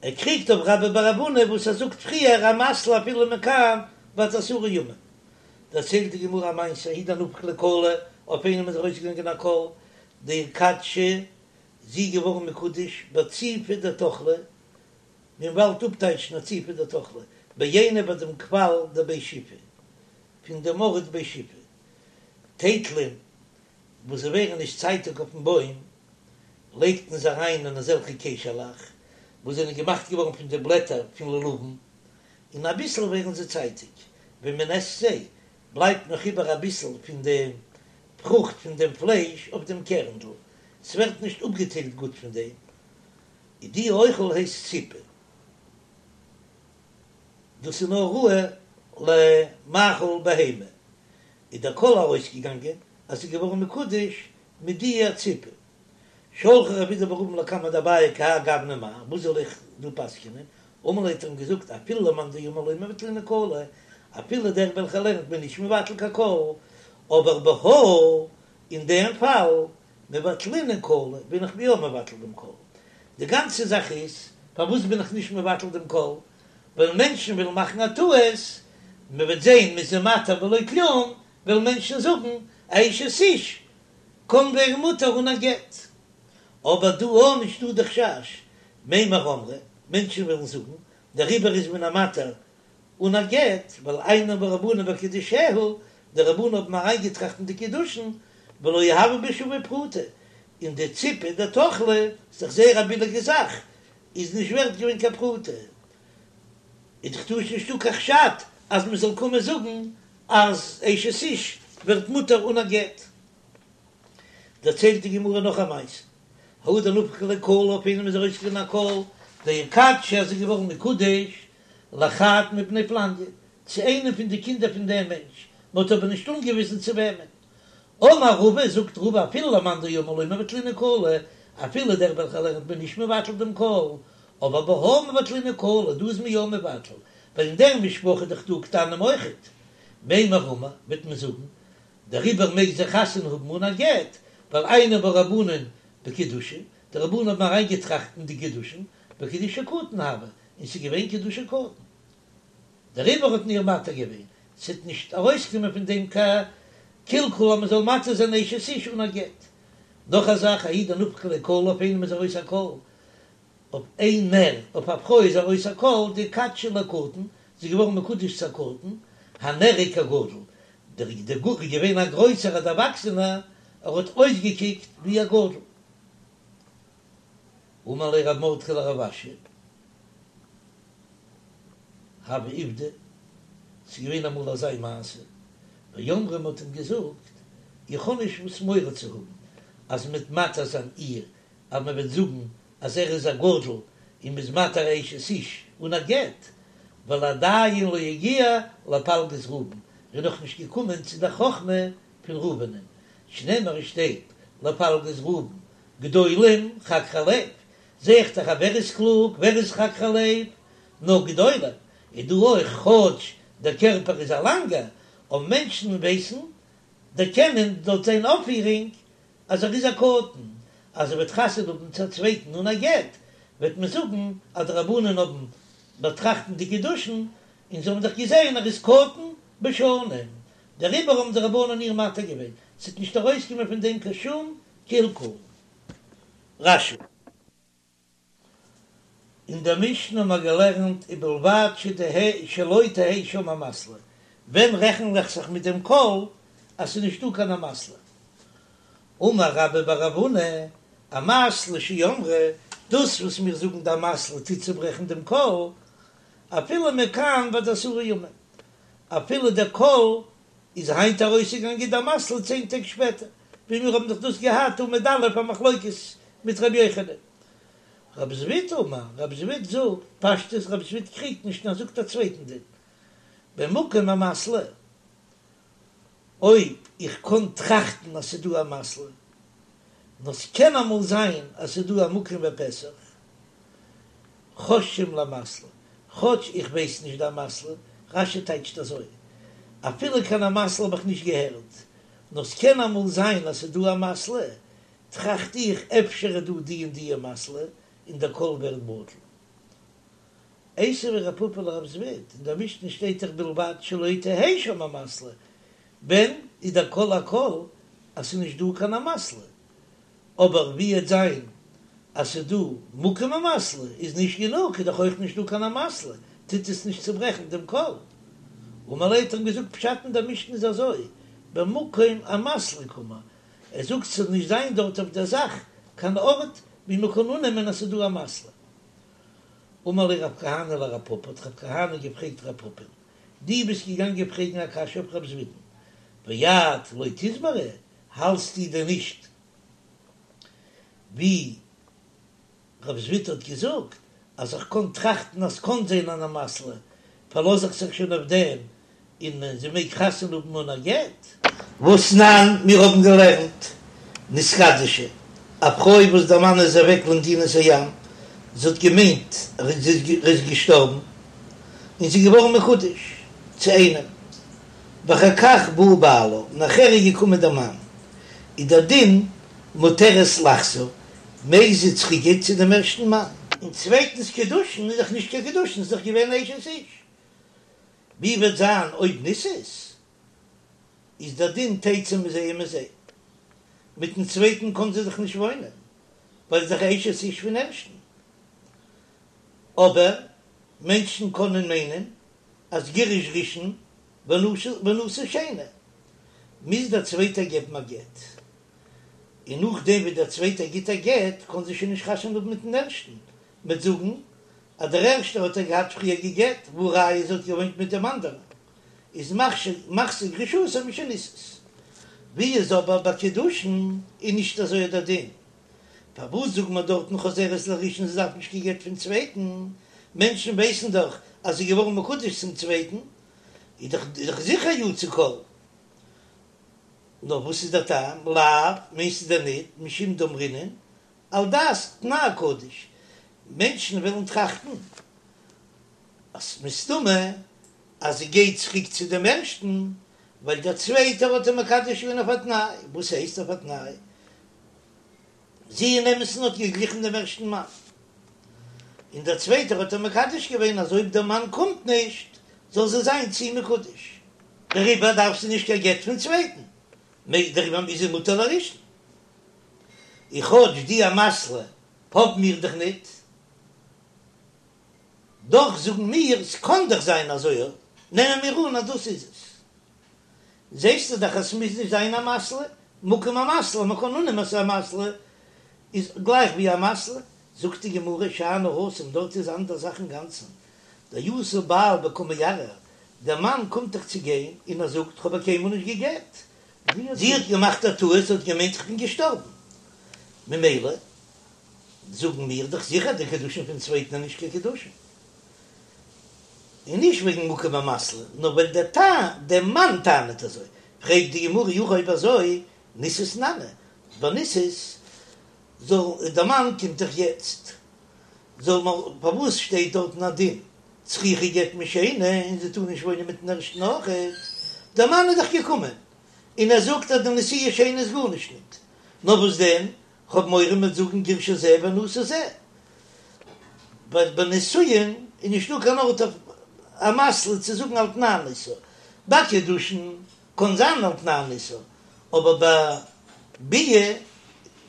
ער קריגט אויף רבה בר רב הונא וואס ער זאגט פריער אמתלא אפילו מכאן ועד עשרה ימים. דערציילט די גמרא א מעשה, ההוא דנפק ליה קלא, אויף איינעם איז ארויסגעגאנגען א קול, דאיקדשה, זי איז געווארן מקודש בציפא דתכלא, מען וואלט אפטייטשן א ציפא דתכלא, בעינא ביי דעם קוואל דבי שיפי, פון דעם ארט בי שיפי, טייטלען וואס זיי ווערן נישט צייטיג אויפן בוים, לייגט מען זיי אריין אין אזעלכע קעשעלעך וואס זענען געמאכט געווארן פון די בלעטער פון לולבים, און אביסל ווערן זיי צייטיג, ווען מען עסט זיי, בלייבט נאך איבער אביסל פון דעם פרוכט פון דעם פלייש אויף דעם קערנדל, ס'ווערט נישט אפגעטיילט גוט פון דעם, איז די אוכל הייסט ציפא, דאס איז נאר ראוי למאכל בהמה, איז דער קול ארויסגעגאנגען אז ס'איז געווארן מקודש מיט די ציפא. שלחיה רב אידי בר אבין לקמיה דאביי כי האי גוונא מהו, וואס זאל איך דא פסק'נען? אמר ליה האט ער אים געזאגט אפילו למאן דאמר לא מבטלינן קלא, אפילו דער וועלכער לערנט מ'איז נישט מבטל קיין קול, אבער בהא אין דעם פאל מבטלינן קלא בין איך יא מבטל דעם קול. די גאנצע זאך איז פארוואס בין איך נישט מבטל דעם קול, ווייל מענטשן וועלן מאכן א טעות, מען וועט זען מ'איז איר מתיר בלא כלום, וועלן מענטשן זאגן אשת איש קען ווערן מותר אן א גט. אבער דא אויך נישט דא די חשש, מימר אמרי, מענטשן וועלן זאגן, דעריבער איז מען איר מתיר אן א גט, ווייל עיינו בהו רבנן בקידושיה, די רבנן האבן אריינגעטראכט אין די קידושין, ולא הוה בשוה פרוטה, און די ציפא דתכלא, איז דאך זייער א ביליגע זאך, איז נישט ווערט געווען קיין פרוטה, איז דאך דא נישטא קיין חשד אז מען זאל קומען זאגן אז אשת איש ווערט מותר אן א גט. דערציילט די גמרא נאך א מעשה, ההוא דנפק ליה קלא אויף איינעם איז ארויסגעגאנגען א קול דאיקדשה אז זי איז געווארן מקודש לחד מבני פלניא, צו איינעם פון די קינדער פון דעם מענטש, מען האט אבער נישט אנגעוויזן צו וועמען. אמר רבא, זאגט רבא אפילו למאן דאמר לא מבטלינן קלא, אפילו דער וועלכער לערנט מ'איז נישט מבטל דעם קול, אבער בהא מבטלינן קלא, דא איז מען יא מבטל, ווייל אין דער משפחה איז דאך דא קטנים אויכעט. מימר אמרי, וועט מען זאגן, דעריבער מעג זי חתונה האבן אן א גט, ווייל עיינו בהו רבנן בקידושין, די רבנן האבן אריינגעטראכט אין די קידושין, וקידושי קטן הוה, און ס'איז געווען קידושי קטן. דעריבער האט מען איר מתיר געווען, ס'וועט נישט ארויסקומען פון דעם קיין קלקול אז מ'זאל מתיר זיין אשת איש אן א גט. נאך א זאך, ההוא דנפק ליה קלא אויף איינעם איז ארויס א קול, אויף איינער, אויף א פרוי איז ארויס א קול, דאיקדשה לקטן, זי איז געווארן מקודש צו א קטן, הנראה כגדול, דער דער איז געווען א גרויסער א דערוואקסענער, ער האט אויסגעקוקט ווי א גדול. אמר ליה רב מרדכי לרב אשי, הוה עובדא, ס'איז געווען אמאל אזא מעשה, ואמרו מ'האט אים געזאגט, איך האב נישט וואס מורא צו האבן אז מ'וועט מתיר זיין איר, אז מ'וועט זאגן אז ער איז א גדול און מ'איז מתיר אשת איש אן א גט, ווייל עדיין לא הגיע לפלגות ראובן, ער איז נאך נישט געקומען צו דער חכמה פון ראובנ'ען, שנאמר עס שטייט לפלגות ראובן גדולים חקרי לב, זע איך דאך אז ווער איז קלוג, ווער איז חקרי לב, נאר גדולים, איז דא אויך כאטש דער קערפער איז א לאנגער, אבער מענטשן ווייסן דערקענען דורך זיין אויפפירונג אז ער איז א קטן, אז ער וועט חתונה האבן צו א צווייטן אן א גט, וועט מען זאגן אז די רבנן האבן באטראכט אין די קידושין און זיי האבן דאך געזען ער איז קטן בשנים, דעריבער האבן די רבנן איר מתיר געווען, ס'וועט נישט ארויסקומען פון דעם קיין שום קלקול. רש"י. אין דער משנה האבן מיר געלערנט ובלבד שתהא שלא תהא שם אמתלא. ווען רעכן איך זיך מיט דעם קול אז ס'איז נישטא קיין אמתלא? אמר רבה בר רב הונא, אמתלא שאמרו, דאס וואס מיר זאגן די אמתלא טוט צוברעכן דעם קול, אפילו מכאן ועד עשרה ימים, אפילו דער קול איז היינט ארויסגעגאנגען די אמתלא צען טעג שפעטער, ווי מיר האבן דאך דאס געהאט עמוד א' א מחלוקת מיט ר' יוחנן. רב זביד אמר, רב זביד זאגט, פשטות רב זביד קריגט נישט נאר זאגט א צווייטן דין, במקום אמתלא, אויב איך קען טראכטן אז ס'איז דא אמתלא, נאר ס'קען אמאל זיין אז ס'איז דא א מקום ופתח, חוששין לאמתלא, כאטש איך ווייס נישט די אמתלא, רש"י טייטשט אזוי, אפילו קיין אמתלא האב איך נישט געהערט, נאר ס'קען אמאל זיין אז ס'איז דא אמתלא, טראכט איך אפשר איז דא די און די אמתלא, און דער קול ווערט בטל. איתיביה רב פפא לרב זביד, אין דער משנה שטייט דאך בלבד שלא תהא שם אמתלא, ווען איז דער קול א קול אז ס'איז נישט דא קיין אמתלא, אבער ווי עט זיין אז ס'איז דא מקום אמתלא איז נישט גענוג, איז דאך אויך נישט דא קיין אמתלא, טוט עס נישט צוברעכן דעם קול. אמר ליה האט ער אים געזאגט פשט אין דער משנה איז אזוי, במקום אמתלא קאמר, ער זאגט ס'זאל נישט זיין דארט אויף דער זאך קיין ארט ווי מ'קען אננעמען אז ס'איז דא אמתלא. אמר ליה רב כהנא לרב פפא, האט רב כהנא געפרעגט רב פפא'ן, דו ביסט געגאנגען פרעגן א קשיא אויף רב זביד'ן, ואת לא תסברא, האלטסטו דען נישט ווי רב זביד האט געזאגט אז איך קען טראכטן אז ס'קען זיין אן אמתלא, פארלאז איך זיך שוין אויף דעם און זי מעג חתונה האבן אן א גט? והתנן, מיר האבן געלערנט, נתקדשה, א פרוי וואס דער מאן איז אוועק למדינת הים, זי האט געמיינט ער איז געשטארבן, און זי איז געווארן מקודש צו איינעם, ואחר כך בא בעלה, נאכער איז געקומען דער מאן, איז דער דין מותרת לחזור, מעג זי צוריקגיין צו דעם ערשטן מאן. און צווייטנס קידושין איז דאך נישט קיין קידושין, ס'איז דאך געווען אשת איש. ווי וועט זיין אויב נישאת, איז דער דין תצא מזה ומזה, מיטן צווייטן קען זי דאך נישט וואוינען, ווייל זי איז דאך אשת איש פון ערשטן. אבער מענטשן קענען מיינען אז גירש ראשון ונשא שני, מוז דער צווייטער געבן א גט, און נאכדעם ווי דער צווייטער גיט א גט קען זי שוין נישט חתונה האבן מיטן ערשטן, מ'וועט זאגן אז דער ערשטער האט איר געהאט פריער גע'גט, והא ראיה זי האט געוואוינט מיט דעם אנדערן, איז מחזיר גרושתו משנישאת. ווי איז אבער ביי קידושין איז נישט אזוי דער דין, פארוואס זאגט מען דארטן חוזרת לראשון זי דארף נישט קיין גט פון צווייטן, מענטשן ווייסן דאך אז זי איז געווארן מקודש צום צווייטן, איז דאך זיכער יצא קול. נאר וואס איז דער טעם? לאו, מיינסטו דען ניט, משום דאמרינן, על דעת תנאי קדיש, מענטשן וועלן טראכטן אז מסתמא אז זי גייט צוריק צו דעם ערשטן, ווייל דער צווייטער האט איר מקדש געווען אויף א תנאי, וואס הייסט אויף א תנאי? זי אין אמת'ן האט געגליכן דעם ערשטן מאן, און דער צווייטער האט איר מקדש געווען אז אויב דער מאן קומט נישט זאל זי זיין צו אים מקודש, דעריבער דארף זי נישט קיין גט פון צווייטן, דעריבער איז זי מותר לראשון. און כאטש די אמתלא האבן מיר דאך ניט, דאך זאגן מיר, ס'קאן דאך זיין אזוי, נעמען מיר אן אז דאס איז עס. זעסטו דאך אז ס'מוז נישט זיין אמתלא, מקום אמתלא, מ'קען אננעמען אז ס'איז אמתלא, איז גלייך ווי אמתלא. זאגט די גמרא, שאני התם, דארט איז אנדער זאך אינגאנצן, דאתא בעל וקא מערער, דער מאן קומט דאך צו גיין און ער זאגט, כ'האב איר קיינמאל נישט גע'גט, זי האט געמאכט א טעות, זי האט געמיינט כ'בין געשטארבן, ממילא זאגן מיר דאך זיכער די קידושין פון צווייטן איז נישט קיין קידושין. און נישט וועגן מקום אמתלא, נאר ווייל דער טען, דער מאן טענה'ט אזוי, פרעגט די גמרא אי הכי אויב אזוי, נישאת נמי, ביי נישאת זאל, דער מאן קומט דאך יעצט, זאל מען, פארוואס שטייט דארטן א דין צריכה גט משני און זי טאר נישט וואוינען מיטן ערשטן אויכעט, דער מאן איז דאך געקומען און ער זאגט אז די נשואה שניה איז גארנישט ניט, נאר וואס דען, כ'האב מורא מ'וועט זאגן גירשה זה ונשא זה, ווייל ביי נישואין איז נישטא קיין ארט אויף אמתלא צו זאגן על תנאי נישאה, ביי קידושין קען זיין על תנאי נישאה, אבער ביי ביאה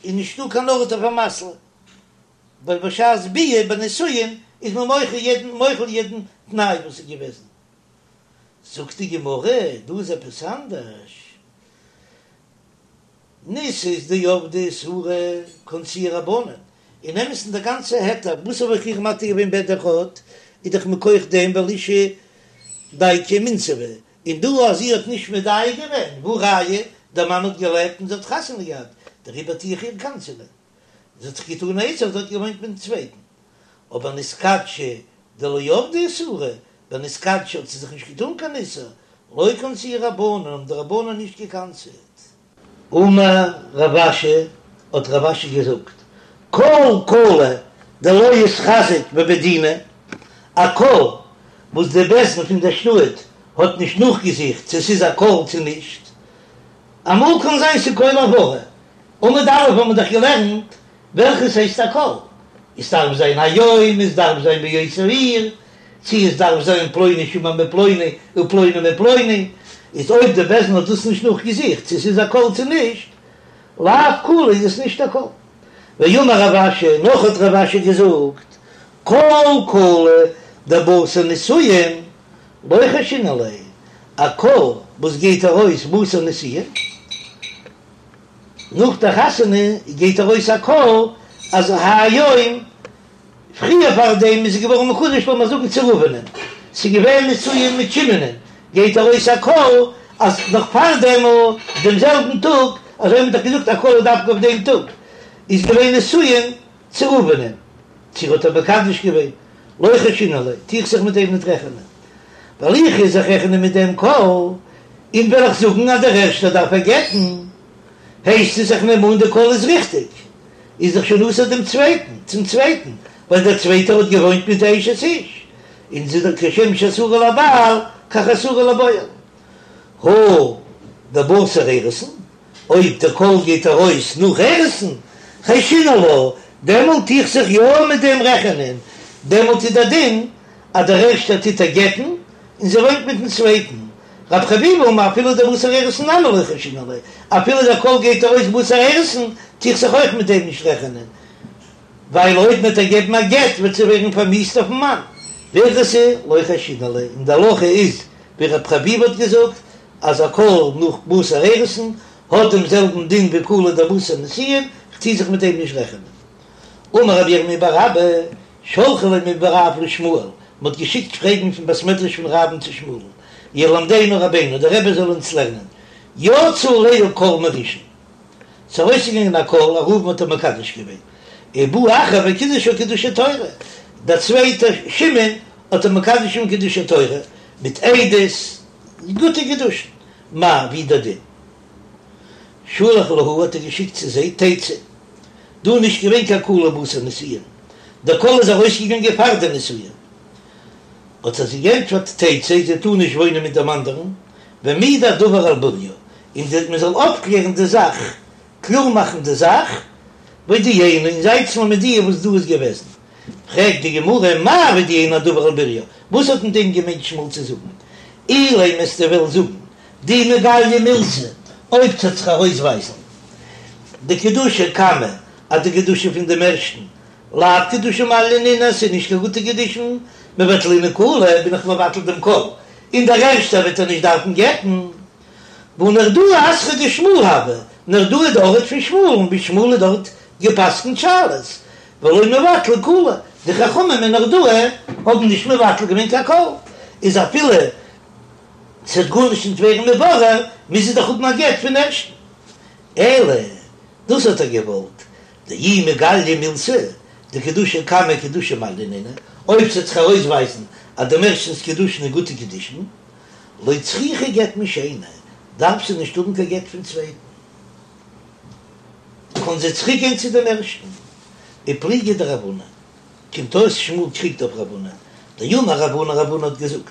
איז נישטא קיין ארט אויף אמתלא, ווייל בשעת ביאה ביי נישואין איז מען מוחל יעדן מוחל יעדן תנאי וואס איז געוועזן. זאגט די גמרא, דא איז עפעס אנדערש, נישאת דעבדה איסורא קנסוה רבנן, אין אמת'ן דער גאנצע היתר וואס האב איך איר מתיר געווען בעד אחד איז דאך מכח דעם ווייל אשה דייקא ומינסבא, און דא אז זי האט נישט מדייק געווען, והא ראיה, דער מאן האט געלעבט און זי האט חתונה געהאט, דעריבער טו איך איר קנס'ענען. זי האט זיך געטאן א איסור, זי האט געוואוינט מיטן צווייטן. אבער נתקדשה דלא עבדה איסורא, ביי נתקדשה האט זי זיך נישט געטאן קיין איסור, לא קנסוה רבנן, האבן די רבנן נישט געקנס'עט. אמר רב אשי, האט רב אשי געזאגט, כל קלא דלא איתחזק בבי דינא, א קול וואס די בית דין פון דער שטאט האט נישט נאכגעזוכט צו ס'איז א קול צו נישט, אמאל קען זיין ס'איז קול הברה, עמוד א' האבן מיר דאך געלערנט וועלכעס הייסט א קול, עס דארף זיין היום, עס דארף זיין באותה עיר, צו עס דארף זיין פלוני שמע מפלוני ופלוני מפלוני, איז אויב די בית דין האט דאס נישט נאכגעזוכט צו ס'איז א קול צו נישט, לאו קלא איז עס נישט א קול. ואמר רב אשי, נאך האט רב אשי געזאגט, כל קלא דבתר נישואין לא חיישינן ליה, א קול וואס גייט ארויס בתר נישואין, נאך די חתונה גייט ארויס א קול אז היום, פריער פאר דעם איז זי געווארן מקודש לאמיר זאגן צו ראובנ'ען, ס'איז געווען נישואין מיט שמעונ'ען, גייט ארויס א קול אז נאך פאר דעם דעם זעלבן טאג, אזוי האט מען דאך געזאגט א קול איז דווקא אויף דעם טאג, איז געווען נישואין צו ראובנ'ען, צו ער האט איר מקדש געווען, לא חיישינן ליה, טו איך זיך מיט דעם ניט רעכענען, ווייל איך וועל זיך רעכענען מיט דעם קול, און וועל איך זאגן אז דער ערשטער דארף איר גט'ן, הייסט עס איך נעם אן די קול איז ריכטיג, איז דאך שוין אסור דעם צווייטן, צום צווייטן, ווייל דער צווייטער האט געוואוינט מיט די אשת איש, און זי איז דאך כשם שאסורה לבעל כך אסורה לבועל. הא דבתר אירוסין, אויב דער קול גייט ארויס נאך אירוסין, חיישינן לה, דעמאלט טו איך זיך יא מיט דעם רעכענען, דעמאלט איז דער דין אז דער ערשטער טוט איר גט'ן און זי וואוינט מיטן צווייטן. רב חביבא אמר אפילו דבתר אירוסין נמי לא חיישינן ליה, אפילו דער קול גייט ארויס בתר אירוסין, טו איך זיך אויך מיט דעם נישט רעכענען, ווייל אויב מ'וועט איר געבן א גט וועט זי ווערן פארמיאוסט אויפן מאן. והלכתא לא חיישינן ליה, און די הלכה איז ווי רב חביבא האט געזאגט, אז א קול נאך בתר אירוסין האט דעם זעלבן דין ווי קלא דבתר נישואין, כ'טו זיך מיט דעם נישט רעכענען. אמר רב ירמי' בר אבא, שלחו ליה מבי רב לשמואל, מ'האט געשיקט פרעגן פון בית מדרש פון רב'ן צו שמואל'ן, ילמדנו רבינו, דער רבי זאל אונז לערנען, יצא עליה קול מראשון, ס'איז ארויסגעגאנגען א קול, אז ראובן האט איר מקדש געווען, ובא אחר וקידשה קידושי תורה, דער צווייטער שמעון האט איר מקדש געווען קידושי תורה, מיט עדות, גוטע קידושין, מהו, ווי דער דין. שלח להו האט ער געשיקט צו זיי תצא, דא איז נישט געווען קיין קלא בתר נישואין, דער קול איז ארויסגעגאנגען פאר די נישואין, האט ער זיי געענטפערט תצא, זי טאר נישט וואוינען מיט דעם אנדערן, והעמידו הדבר על בוריו, און מען זאל אויפקלערן די זאך, קלאר מאכן די זאך, והודיעונו, און זייטס מיר מודיע וואס דא איז געוועזן. פרעגט די גמרא, מאי והודיעונו הדבר על בוריו, וואס האט מיט דעם געמיינט שמואל צו זאגן? אילימא וועסטו וועלן זאגן, דאי מגליא מילתא, אויב ס'וועט זיך ארויסווייזן דקידושי קמא אז די קידושין פון דעם ערשטן לאו קידושי מעליא נינהו, ס'איז נישט קיין גוטע קידושין, מבטלינן קלא, בין איך מבטל דעם קול, און דער ערשטער וועט ער נישט דארפן גט'ן. והא נהרדעא אתרא דשמואל הוה, נהרדעא איז די ארט פון שמואל'ן, ווי שמואל האט דארט גע'פסק'נט שאלות, ולא מבטלי קלא, די חכמים אין נהרדעא האבן נישט מבטל געווען קיין קול, איז אפילו ס'וועט גארנישט נישט ווערן מבורר, מוז זי דאך האבן א גט פון ערשטן. אלא דאס האט ער געוואלט, דאי מגליא מילתא, דקידושי קמא קידושי מעליא נינהו, אויב ס'וועט זיך ארויסווייזן אז דעם ערשטנ'ס קידושין איז גוטע קידושין, לא צריכה גט משני, דארף זי נישט האבן קיין גט פון צווייטן, קען זי צוריק גיין צו דעם ערשטן. ופליגא דרב הונא, קומט אויס שמואל קריגט אויף רב הונא, דאמר רב הונא, רב הונא האט געזאגט,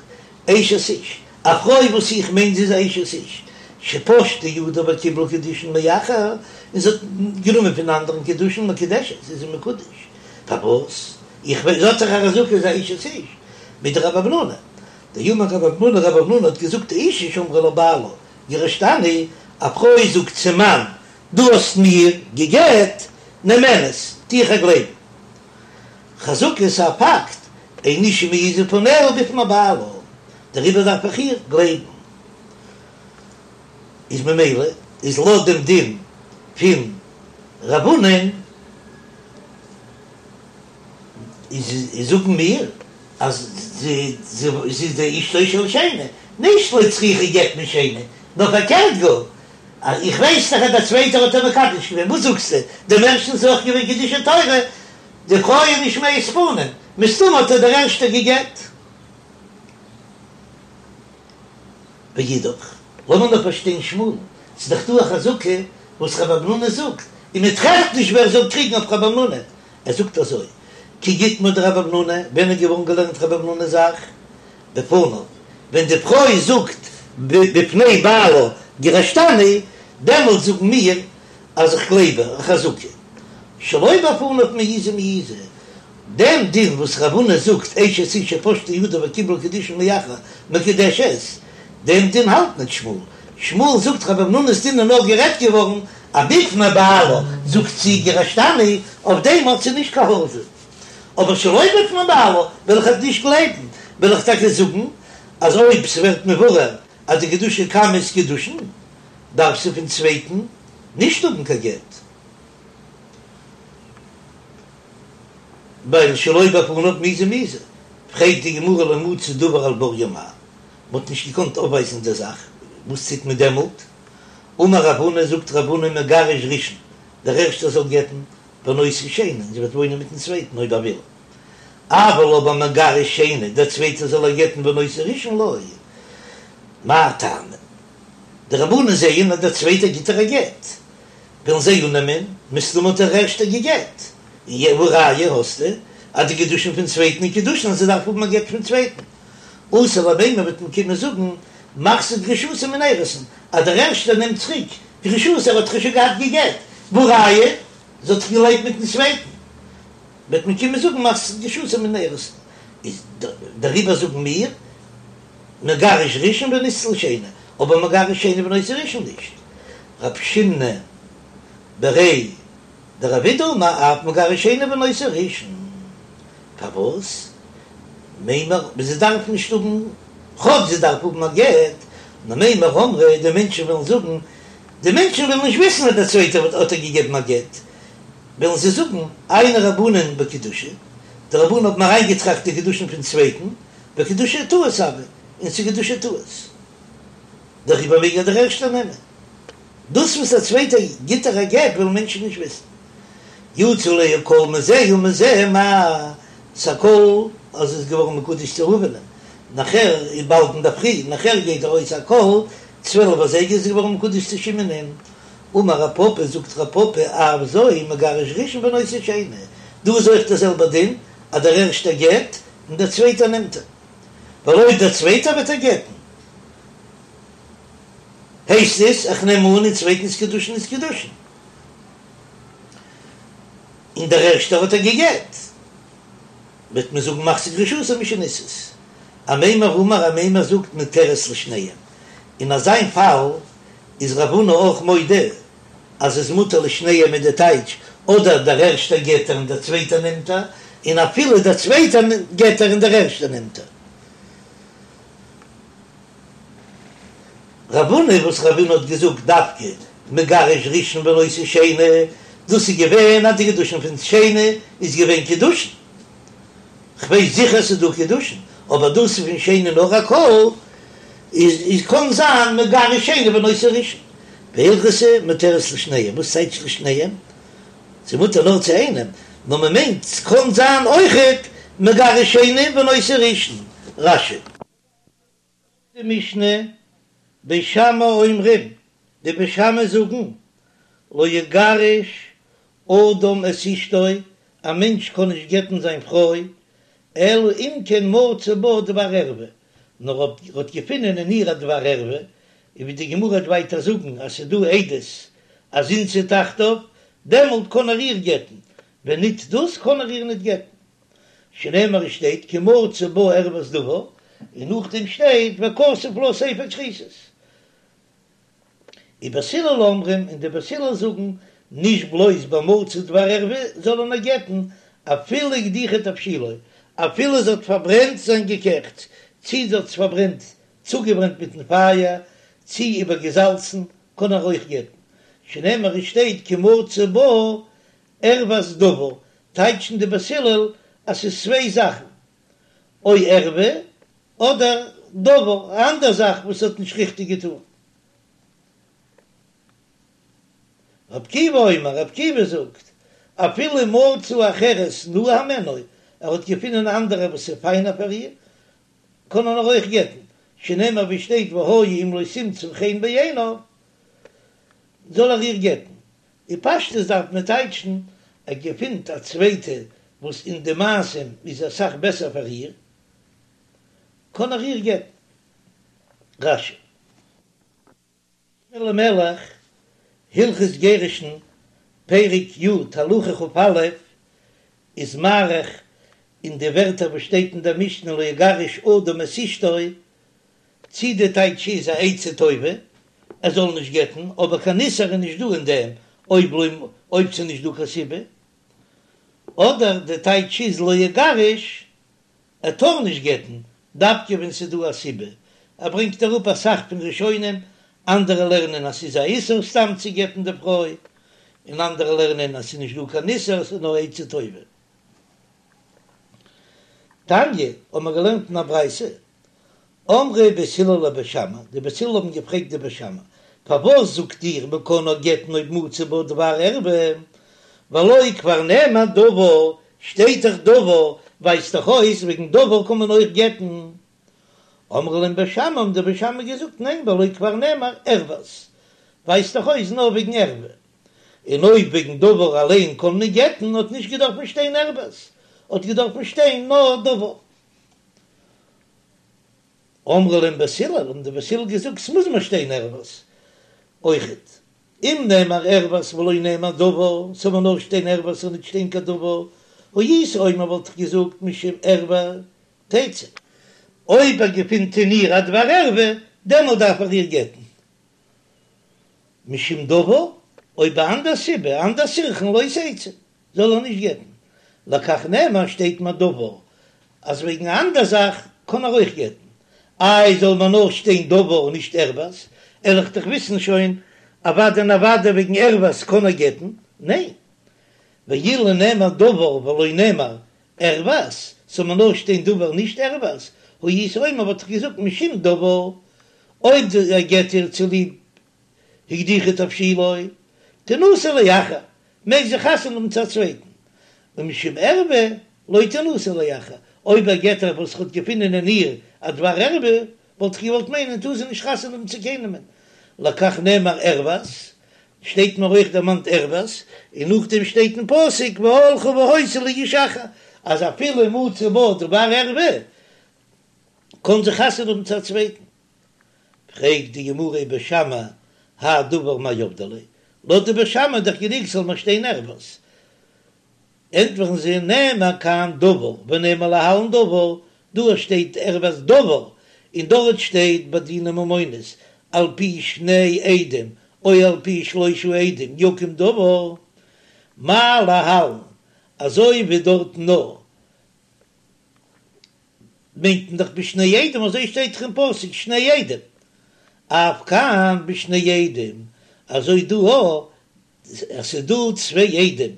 אשת איש, א פרוי וואס איך מיין זי איז א אשת איש, שפשטה ידה וקיבלה קידושין מאחר, און זי האט גענומען פון אנדערן קידושין מקודשת, איז זי מקודש, פארוואס? איך ווייס, זי האט דאך א חזקה זי איז אשת איש, מדרב המנונא, דאמר רב המנונא, רב המנונא האט געזאגט אשה שאמרה לבעלה גירשתני, א פרוי זאגט צום מאן, דו האסט מיר גע'גט, נאמנת, טו איך איר גלייבן. חזקה איז א פאקט, אין אשה מעיזה פניה בפני בעלה. דעריבער דארף איך איר גלייבן. איז ממילא איז לויט דעם דין פון רב הונא'ן איז זאגן מיר אז זי איז די אשתו של שני, נישט לא צריכה גט משני, נאר פארקערט גאר, אז איך ווייס דאך אז דער צווייטער האט איר מקדש געווען, וואס זאגסטו, דעם ערשטן איז אויך געווען קידושי תורה, די פרוי איז נישט מעיז פנים, מסתמא האט איר דער ערשטער גע'גט. ואידך, לאמיר נאר פארשטיין שמואל'ן, ס'איז דאך דא א חזקה וואס רב המנונא זאגט, און מען טרעפט נישט ווער זאל קריגן אויף רב המנונא, ער זאגט אזוי, כי איתמר דרב המנונא, ווען איז געווארן געלערנט רב המנונא'ס זאך? בפניו, ווען די פרוי זאגט בפני בעלה גירשתני, דעמאלט זאגן מיר אז איך גלייב איר, א חזקה. שלא בפניו מעיזי מעיזי, דעם דין וואס רב הונא זאגט אשת איש שפשטה ידה וקיבלה קידושין מאחר מקודשת, דעם דין האלט ניט שמואל, שמואל זאגט רב המנונא'ס דין איז נאר גערעדט געווארן אז בפני בעלה זאגט זי גירשתני, אויף דעם האט זי נישט קיין העזה, אבער שלא בפני בעלה וועל איך איר נישט גלייבן, וועל איך טאקע זאגן אז אויב ס'ווערט מבורר אז די קידושי קמא איז קידושין דארף זי פון צווייטן נישט האבן קיין גט. ווייל שלא בפניו מעיזי מעיזי, פרעגט די גמרא לא מצאו דבר על בוריו מהו, מ'האט נישט געקאנט אויפווייזן די זאך, וואס טוט מען דעמאלט? אמר רב הונא, זאגט רב הונא מגרש ראשון, דער ערשטער זאל גט'ן, ונושא שני, און זי וועט וואוינען מיטן צווייטן אויב ער וויל, אבל אבער מגרש שני, דער צווייטער זאל איר גט'ן ונושא ראשון לא, מאי טעמא? די רבנן זעען אז דער צווייטער גיט איר א גט, וועלן זיי אננעמען, מסתמא האט דער ערשטער געגעט, און והא ראיה האסטו אז די קידושין פון צווייטן איז קידושין אז זי דארף האבן א גט פון צווייטן. אתי למימר וועט מען קומען זאגן מחזיר גרושתו מן האירוסין אז דער ערשטער נעמט צוריק גרושתו ער האט דאך שוין געהאט געגעט, והא ראיה זי האט דאך געלעבט מיטן צווייטן, וועט מען קומען זאגן מחזיר גרושתו מן האירוסין, איז דעריבער זאגן מיר מגרש ראשון ונישא לשני, אבער מגרש שני ונושא ראשון נישט. רב שיננא בריה דרב אידי אמר אף מגרש שני ונושא ראשון, פארוואס? מימר זי דארף נישט האבן, כאטש זי דארף האבן א גט, נאר מימר אמרי די מענטשן וועלן זאגן, די מענטשן וועלן נישט וויסן אז דער צווייטער האט איר געגעבן א גט, וועלן זיי זאגן, עיינו רבנן בקידושי, די רבנן האבן אריינגעטראכט די קידושין פון צווייטן, וקידושי טעות הוו, און ס'איז קידושי טעות. דעריבער מעג איר דער ערשטער נעמען. דאס וואס א צווייטער גיט איר א גט וועלן מענטשן נישט וויסן. יצא עליה קול מזה ומזה מהו, ס'א קול אז זי איז געווארן מקודש צו ראובנ'ען, נאכער איז באלד אינדערפרי, נאכער גייט ארויס א קול 12 אזייגער איז זי געווארן מקודש צו שמעונ'ען. אמר רב פפא, זאגט רב פפא, אף זו מגרש ראשון ונושא שני, דא איז אויך דער זעלבער דין אז דער ערשטער גט און דער צווייטער נעמט איר, ווייל אויב דער צווייטער וועט איר גט'ן, הייסט עס, איך נעם אן אין צווייטנס קידושין איז קידושין, און דער ערשטער האט איר געגעט, וועט מען זאגן מחזיר גרושתו משנישאת. אמימר אמר אמימר זאגט מותרת לשניהם, אין אזיין פאל איז רב הונא אויך מודה אז איז מותר לשניהם מיט די טייטש, אדער דער ערשטער גט איר און דער צווייטער נעמט איר, און אפילו דער צווייטער גט איר און דער ערשטער נעמט איר. רב הונא וואס רב הונא האט געזאגט דווקא מגרש ראשון ונושא שני, דאס איז געווען אז די קידושין פון שני איז געווען קידושין, כ'ווייס זיכער ס'איז דא קידושין, אבער דאס איז פון שני נאר א קול, איז איז קאן זיין מגרש שני ונושא ראשון, והלכתא מותרת לשניהם, וואס טייטש לשניהם? ס'איז מותר נאר צו איינעם, נאר מ'מיינט ס'קאן זיין אויכעט מגרש שני ונושא ראשון, רש"י. די משנה, בית שמאי אומרים, די בית שמאי זאגן, לא יגרש אדם את אשתו, א מענטש קען נישט גט'ן זיין פרוי, אלא אם כן מצא בה דבר ערווה, נאר אויב ער האט געפונען אין איר א דבר ערווה, און ווי די גמרא וועט ווייטער זאגן אז ס'איז דא עדות אז זינתה תחתיו, דעמאלט קען ער איר גט'ן, ווען ניט דאס קען ער איר ניט גט'ן. שנאמר עס שטייט כי מצא בה ערות דבר, און נאכדעם שטייט וכתב לה ספר כריתות. ובית הלל אומרים, און די בית הלל זאגן, נישט בלויז ביי מצא דבר ערווה זאל ער איר גט'ן, אפילו הקדיחה תבשילו, אפילו זי האט פארברענט זיין געקעכטס. צי זי האט עס פארברענט, צוגעברענט מיטן פייער, צי איבערגעזאלצן, קען ער אויך גט'ן, שנאמר עס שטייט כי מצא בה ערות דבר, טייטשן די בית הלל אז ס'איז צוויי זאכן, או ערווה אדער דבר, א אנדער זאך וואס האט נישט ריכטיג געטאן. רבי עקיבא אומר, רבי עקיבא זאגט, אפילו מצא אחרת נאה הימנה, ער האט געפונען א אנדערע וואס איז פיינער פאר איר, קען ער אויך גט'ן, שנאמר ווי שטייט והיה אם לא תמצא חן בעיניו, זאל ער איר גט'ן. אין פשטות דארף מען טייטשן, ער געפינט א צווייטע וואס אין די מעשים איז אסאך בעסער פאר איר, קען ער איר גט'ן. רש"י. אלימלך, הלכות גירושין, פרק י', הלכה כ"א, איז מאריך אין די ווערטער וואס שטייט אין דער משנה לא יגרש אדם את אשתו, צי די טייטש איז א עצה טובה ער זאל נישט גט'ן, אבער קיין איסור איז נישט דא אין דעם אויב לא אויב ס'איז נישט דא קיין סיבה, אדער די טייטש איז לא יגרש ער טאר נישט גט'ן דווקא ווען ס'איז דא א סיבה, ער ברענגט אראפ אסאך פון ראשונים, אנדערע לערנען אז ס'איז א איסור סתם צו גט'ן די פרוי, און אנדערע לערנען אז ס'איז נישט דא קיין איסור ס'איז נאר עצה טובה. תניא, האבן מיר געלערנט אין א ברייתא, אמרו בית הלל לבית שמאי, די בית הלל האבן געפרעגט די בית שמאי, פארוואס זאגט איר מען קען נאר גט'ן אויב מצא בה דבר ערווה, והלא כבר נאמר דבר, שטייט דאך דבר, ווייזט דאך אויס וועגן דבר קען מען אויך גט'ן. אמרו להם בית שמאי, האבן די בית שמאי געזאגט, ניין והלא כבר נאמר ערות, ווייזט דאך אויס נאר וועגן ערווה, און אויב וועגן דבר אליין קען מען גט'ן האט נישט געדארפן שטיין ערות, האט געדארפן שטיין נאר דבר. אמרו להם בית הלל, האבן די בית הלל געזאגט, ס'מוז מיר שטיין ערות אויכעט, אם נאמר ערות ולא נאמר דבר, ס'זאל מיר נאר שטיין ערות און ניט שטיין קיין דבר, הייתי אומר וואלט איך געזאגט משום ערווה תצא. אויב ער געפינט אין איר א דבר ערווה, דעמאלט דארף ער איר גט'ן. משום דבר, אויב א אנדער סיבה, אנדער סירכין לא תצא. זאל ער נישט גט'ן. לכך נאמר שטייט מיר דבר אז וועגן א אנדער זאך קען ער אויך גט'ן. איי זאל מיר נאר שטיין דבר און נישט ערות, וועל איך דאך וויסן שוין אוודאי און אוודאי וועגן ערות קען ער גט'ן, ניין? ואילו נאמר דבר ולא נאמר ערות, זאל מיר נאר שטיין דבר נישט ערות, הייתי אומר וואלט איך געזאגט משום דבר, אויב ער גט איר צוליב הקדיחה תבשילו, תנשא לאחר, מעג זי חתונה האבן צו א צווייטן, ומשום ערווה לא תנשא לאחר, אויב ער גט איר וואס ער האט געפונען אין איר א דבר ערווה, וואלט איך געוואלט מיינען טאר זי נישט חתונה האבן צו קיינעמען, לכך נאמר ערות, שטייט מיר אויך דערמאנט ערות, און נאכדעם שטייט אין פסוק והלכה והיתה לאיש אחר, אז אפילו מצא בה דבר ערווה, קען זי חתונה האבן צו א צווייטן. פרעגט די גמרא ובית שמאי האי דבר מאי עבדי ליה, לויט די בית שמאי איז דאך גענוג ס'זאל נאר שטיין ערות, ענטפערן זיי נאמר כאן דבר ונאמר להלן דבר, דא שטייט ערות דבר און דארט שטייט ביי דיני ממונות על פי שני עדים או על פי שלושה עדים יקום דבר, מה להלן אזוי ווי דארט נאר מיינט מען דאך בשני עדים, אזוי שטייט דאך אין פסוק שני עדים, אף כאן בשני עדים, אזוי דא אויך, אז ס'איז דא צוויי עדים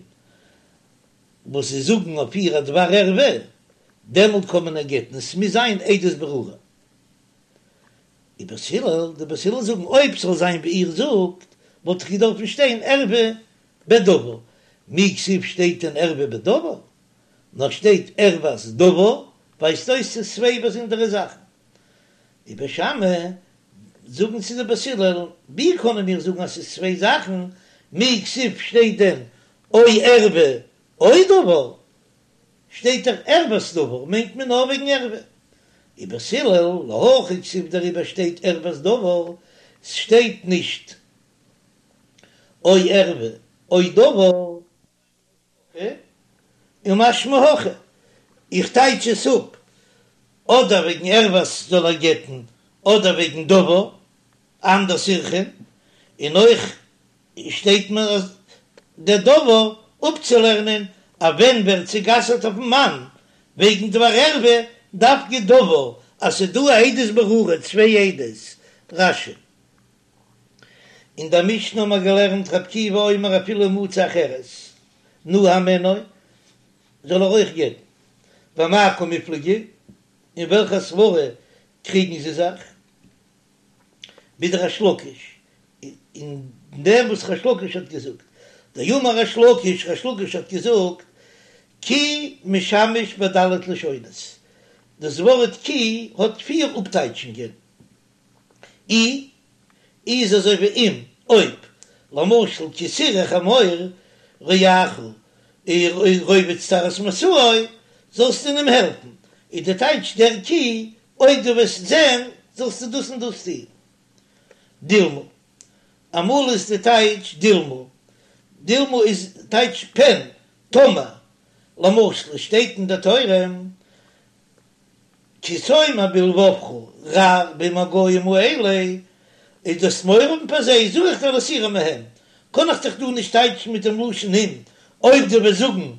וואס זיי זאגן אויף איר א דבר ערווה, דעמאלט קען מען איר גט'ן, עס מוז זיין עדות ברורה. ובית הלל, די בית הלל זאגן אויב ס'זאל זיין ווי איר זאגט, וואלט דאך געדארפן שטיין ערווה בדבר, מי כתיב שטייט דען ערווה בדבר? נאר שטייט ערות דבר, ווייזט אויס ס'איז צוויי באזונדערע זאכן. ובית שמאי זאגן צו די בית הלל, ווי קענען מיר זאגן אז ס'איז צוויי זאכן, מי כתיב שטייט דען או ערווה או דבר, שטייט דאך ערות דבר מיינט מען נאר וועגן ערווה. ובית הלל להכי כתיב דעריבער שטייט ערות דבר, ס'שטייט נישט או ערווה או דבר. ומשמע הכי, איך טייטש עס אפ, אדער וועגן ערות זאל ער גט'ן, אדער וועגן דבר, אנדער סירכין, און אויך שטייט מיר אז דער דבר אפצולערנען אז ווען ווערט זי גע'אסר'ט אויפן מאן וועגן דבר ערווה, דווקא דבר. אז ס'איז דא א עדות ברורה, צוויי עדות, רש"י. אין דער משנה האבן מיר געלערנט רבי עקיבא אומר אפילו מצא אחרת נאה הימנה, זאל ער אויך גט'ן. במאי קמיפלגי, אין וועלכע סברה קריגן זיי זיך? בדריש לקיש, אין דעם וואס ריש לקיש האט געזאגט, דאמר ריש לקיש, ריש לקיש האט געזאגט, כי משמש בד' לשונות, דאס ווארט כי האט פיר אפטייטשונגען, אי איז אזוי ווי אם, אויב, למשל כי תראה חמור רעך רובץ תחת משאו, זאלסטו אים העלפן, איז די טייטש דער כי, אויב דו וועסט זען זאלסטו דאס און דאס טון. דילמא, אמאל איז די טייטש דילמא, דילמא איז טייטש פן, טאמער, למשל עס שטייט אין די תורה, כי תאמר בלבבך רבים הגוים האלה, איז דו'סט מורא האבן פאר זיי, זאג איך דיר לא תירא מהם, קען איך דאך דא נישט טייטשן מיט דעם לשון אם, אויב דו וועסט זאגן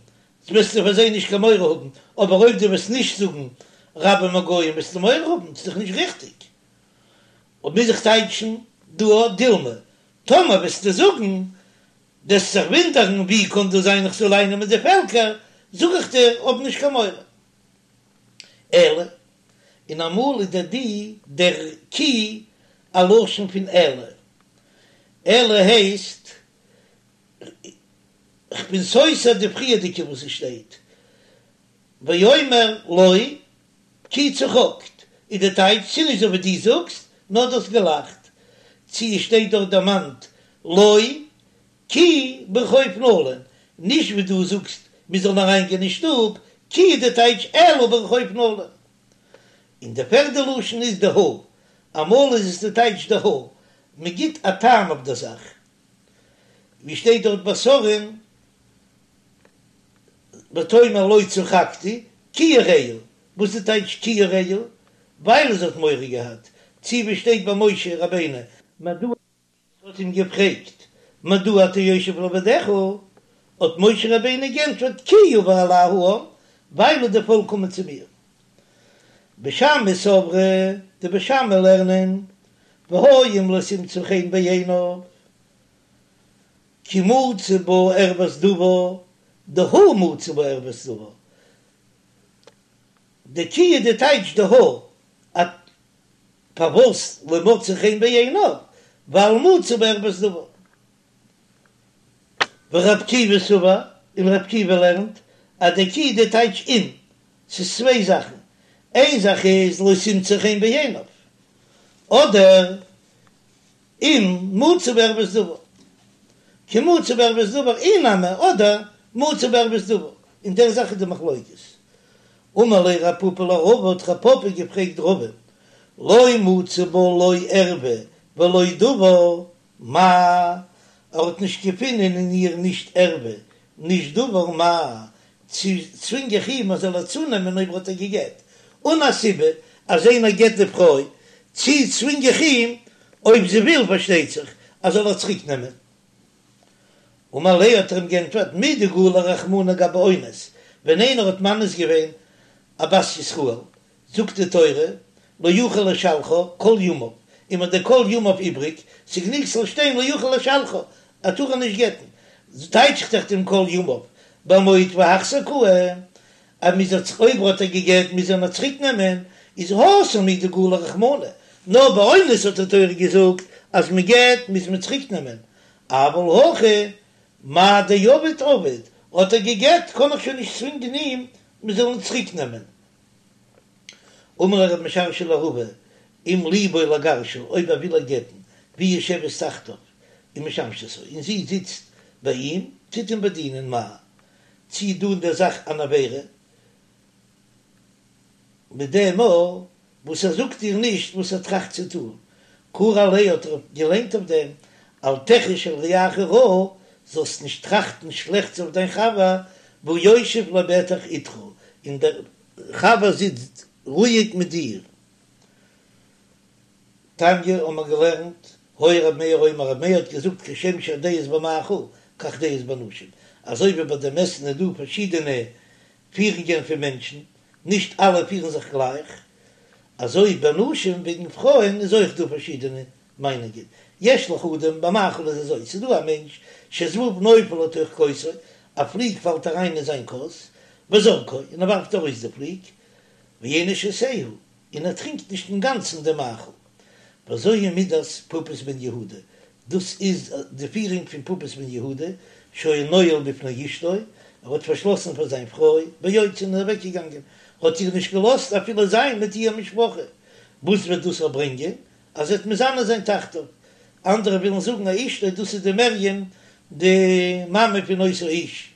וועסטו פאר זיי נישט קיין מורא האבן, אבער אויב דו וועסט נישט זאגן רבים הגוים וועסטו מורא האבן, ס'איז דאך נישט ריכטיג. אויב מוז איך טייטשן דא דילמא, טאמער וועסטו זאגן, דו'סט זיך וואונדערן ווי קען דאס זיין איך זאל אייננעמען די פעלקער, זאג איך דיר האב נישט קיין מורא. אלא, און אמאל איז דער די דער כי א לשון פון אלא, אלא הייסט כ'בין סותר די פריערדיגע וואס עס שטייט ואומר לא כי צחקת, איז די טייטש ס'איז נישט אזוי ווי דו זאגסט, נאר דו האסט געלאכט, צו עס שטייט דארט דערמאנט לא כי ברחוב נלין, נישט ווי דו זאגסט מיר זאלן אריין גיין אין שטוב, כי איז די טייטש אלא ברחוב נלין. און די פערדע לשון איז דהא, אמאל איז עס די טייטש דהא, מען גיט א טעם אויף דער זאך, ווי שטייט דארט ביי שרה'ן ותאמר לא צחקתי כי יראה, וואס איז די טייטש כי יראה? ווייל זי האט מורא געהאט, צו ווי שטייט ביי משה רבינו, מדוע האט אים געפרעגט מדוע אתה יושב לבדך, האט משה רבינו גענטפערט כי יבא אלי העם, ווייל די פאלק קומען צו מיר. בית שמאי סברי, די בית שמאי לערנען, והיה אם לא תמצא חן בעיניו, כי מצא בה ערות דבר, דהא מצא בה ערות דבר, די כי איז די טייטש דהא, א פארוואס לא מצא חן בעיניו, ווייל מצא בה ערות דבר. ורבי עקיבא סבר, און רבי עקיבא לערנט אז די כי די טייטש אם, ס'איז צוויי זאכן, איין זאך איז לא תמצא חן בעיניו, אדער אם מצא בה ערות דבר, כי מצא בה ערות דבר אי נמי, אדער מצא בה ערות דבר, אין דער זאך איז די מחלוקת. אמר ליה רב פפא לרבא, האט רב פפא געפרעגט רבא, לא מצא בה לא ערווה ולא דבר, מהו, ער האט נישט געפונען אין איר נישט ערווה נישט דבר מהו, צו צווינג איך אים ער זאל איר צונעמען אויב האט ער געגעט אן א סיבה אז איינער גט די פרוי, צו צווינג איך אים אויב זי וויל פארשטייט זיך אז זאל איר צוריק נעמען. אמר ליה האט ער אים גענטפערט מדגלי רחמנא גבי אונס, ווען איינער האט מאנס געווען א בת ישראל זאגט די תורה, לא יוכל לשלחה כל ימיו, און מ'האט די כל ימיו איבריג, ס'גענוג ס'זאל שטיין לא יוכל לשלחה, ער טאר איר נישט גט'ן, טייטש איך דאך דעם כל ימיו, במוט והחזר קאי, אז מ'איז איר אויב האט ער געגט מוז ער איר צוריק נעמען, איז התם הוא דגלי רחמנא, נאר ביי אונס האט די תורה געזאגט אז מ'גט מוז מען צוריק נעמען, אבל הכא מאי דעביד עביד, האט ער געגט קען איך שוין נישט צווינגען אים מ'זאל אים צוריק נעמען. אמר ליה רב משרשיא לרבא, אם ליבו לגרשה, אויב ער וויל איר גט'ן, והיא יושבת תחתיו ומשמשתו, און זי זיצט ביי אים, טוט אים באדינען, מהו, צי איז דא אין דער זאך אן עבירה, מיט דעם מאל וואס ער זאגט איר נישט וואס ער טראכט צו טון, קרי עליה האט ער געליינט אויף דעם, אל תחוש על רעך רעה, זאלסט נישט טראכטן שלעכטס אויף דיין חבר, והוא יושב לבטח אתך, און דער חבר זיצט רואיג מיט דיר. תניא האבן מיר געלערנט, היה ר' מאיר אומר, ר' מאיר האט געזאגט כשם שהדעות במאכל, כך דעות בנשים, אזוי ווי ביי דעם עסן איז דא פארשידענע פירונגען פון מענטשן, נישט אלע פירן זיך גלייך. אזוי בנשים וועגן פרויען איז אויך דא פארשידענע מיינונגען, יש לך אדם במאכל איז אזוי, ס'איז דא א מענטש שזבוב נופל לתוך כוסו, א פליג פאלט אריין אין זיין כוס, וזורקו, און ער ווארפט ארויס די פליג, ואינו שותהו, און ער טרינקט נישט אינגאנצן דעם מאכל. וזוהי מידת פפוס בן יהודה, דאס איז די פירונג פון פפוס בן יהודה, שהיה נועל בפני אשתו, ער האט פארשלאסן פאר זיין פרוי, ויוצא און איז אוועקגעגאנגען, האט איר נישט געלאזט אפילו זיין מיט איר משפחה, וואס וועט דאס ברענגען? אז זי וועט מזנה זיין תחתיו. אנדערע ווילן זאגן אז אשתו דאס איז די מרים די מאמע פון אותו האיש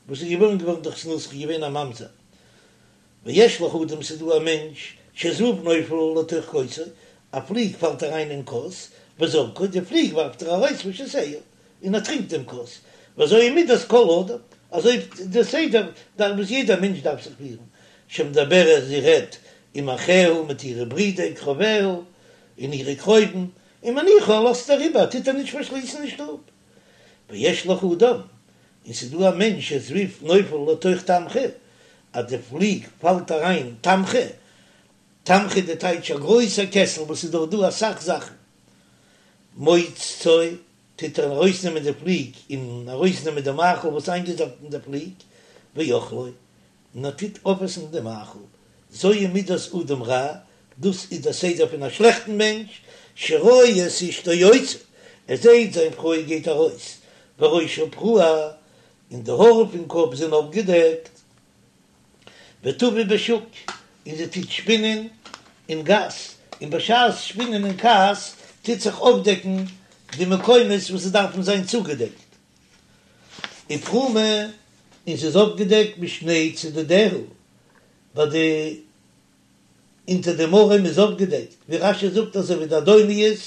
וואס איז געבוירן געווארן דורך זנות איז געווען א ממזר. ויש לך אדם ס'איז דא א מענטש שזבוב נופל לתוך כוסו, א פליג פאלט אריין אין כוס, וזורקו, די פליג ווארפט ער ארויס ושותהו, און ער טרינקט דעם כוס, וזוהי מידת כל אדם, אזוי די סדר דארף וואס יעדער מענטש דארף זיך פירן, שמדברת זי רעדט עם אחיה מיט אירע ברידער קרוביה און אירע קרובים, ומניחה לאזט ער איבער טוט ער נישט פארשליסן אין שטוב. ויש לך אדם, און ס'איז דא א מענטש שזבוב נופל לתוך תמחוי, אז די פליג פאלט אריין תמחוי, תמחוי די טייטש א גרויסע קעסל וואס איז דארט דא אסאך זאכן, מוצצו, טוט ער ארויסנעמען די פליג און ארויסנעמען די מאכל וואס איינגעזאפט אין די פליג, ואוכלו, און ער טוט אויפעסן די מאכל, זוהי מידת אדם רע, דאס איז דער סדר פון א שלעכטן מענטש, שרואה את אשתו יוצאה, ער זעט זיין פרוי גייט ארויס, וראשה פרוע, און די האר פון קאפ זענען אויפגעדעקט, וטווה בשוק, און זי טוט שפינען אין גאס, און בשעת שפינען אין גאס טוט זיך אויפדעקן די מקומות וואס עס דארפן זיין צוגעדעקט. ופרומה, און ס'איז אויפגעדעקט משני צדדיה, ביי די אונטער דעם ארעם איז אויפגעדעקט, ווי רש"י זאגט אזוי ווי די אדוניות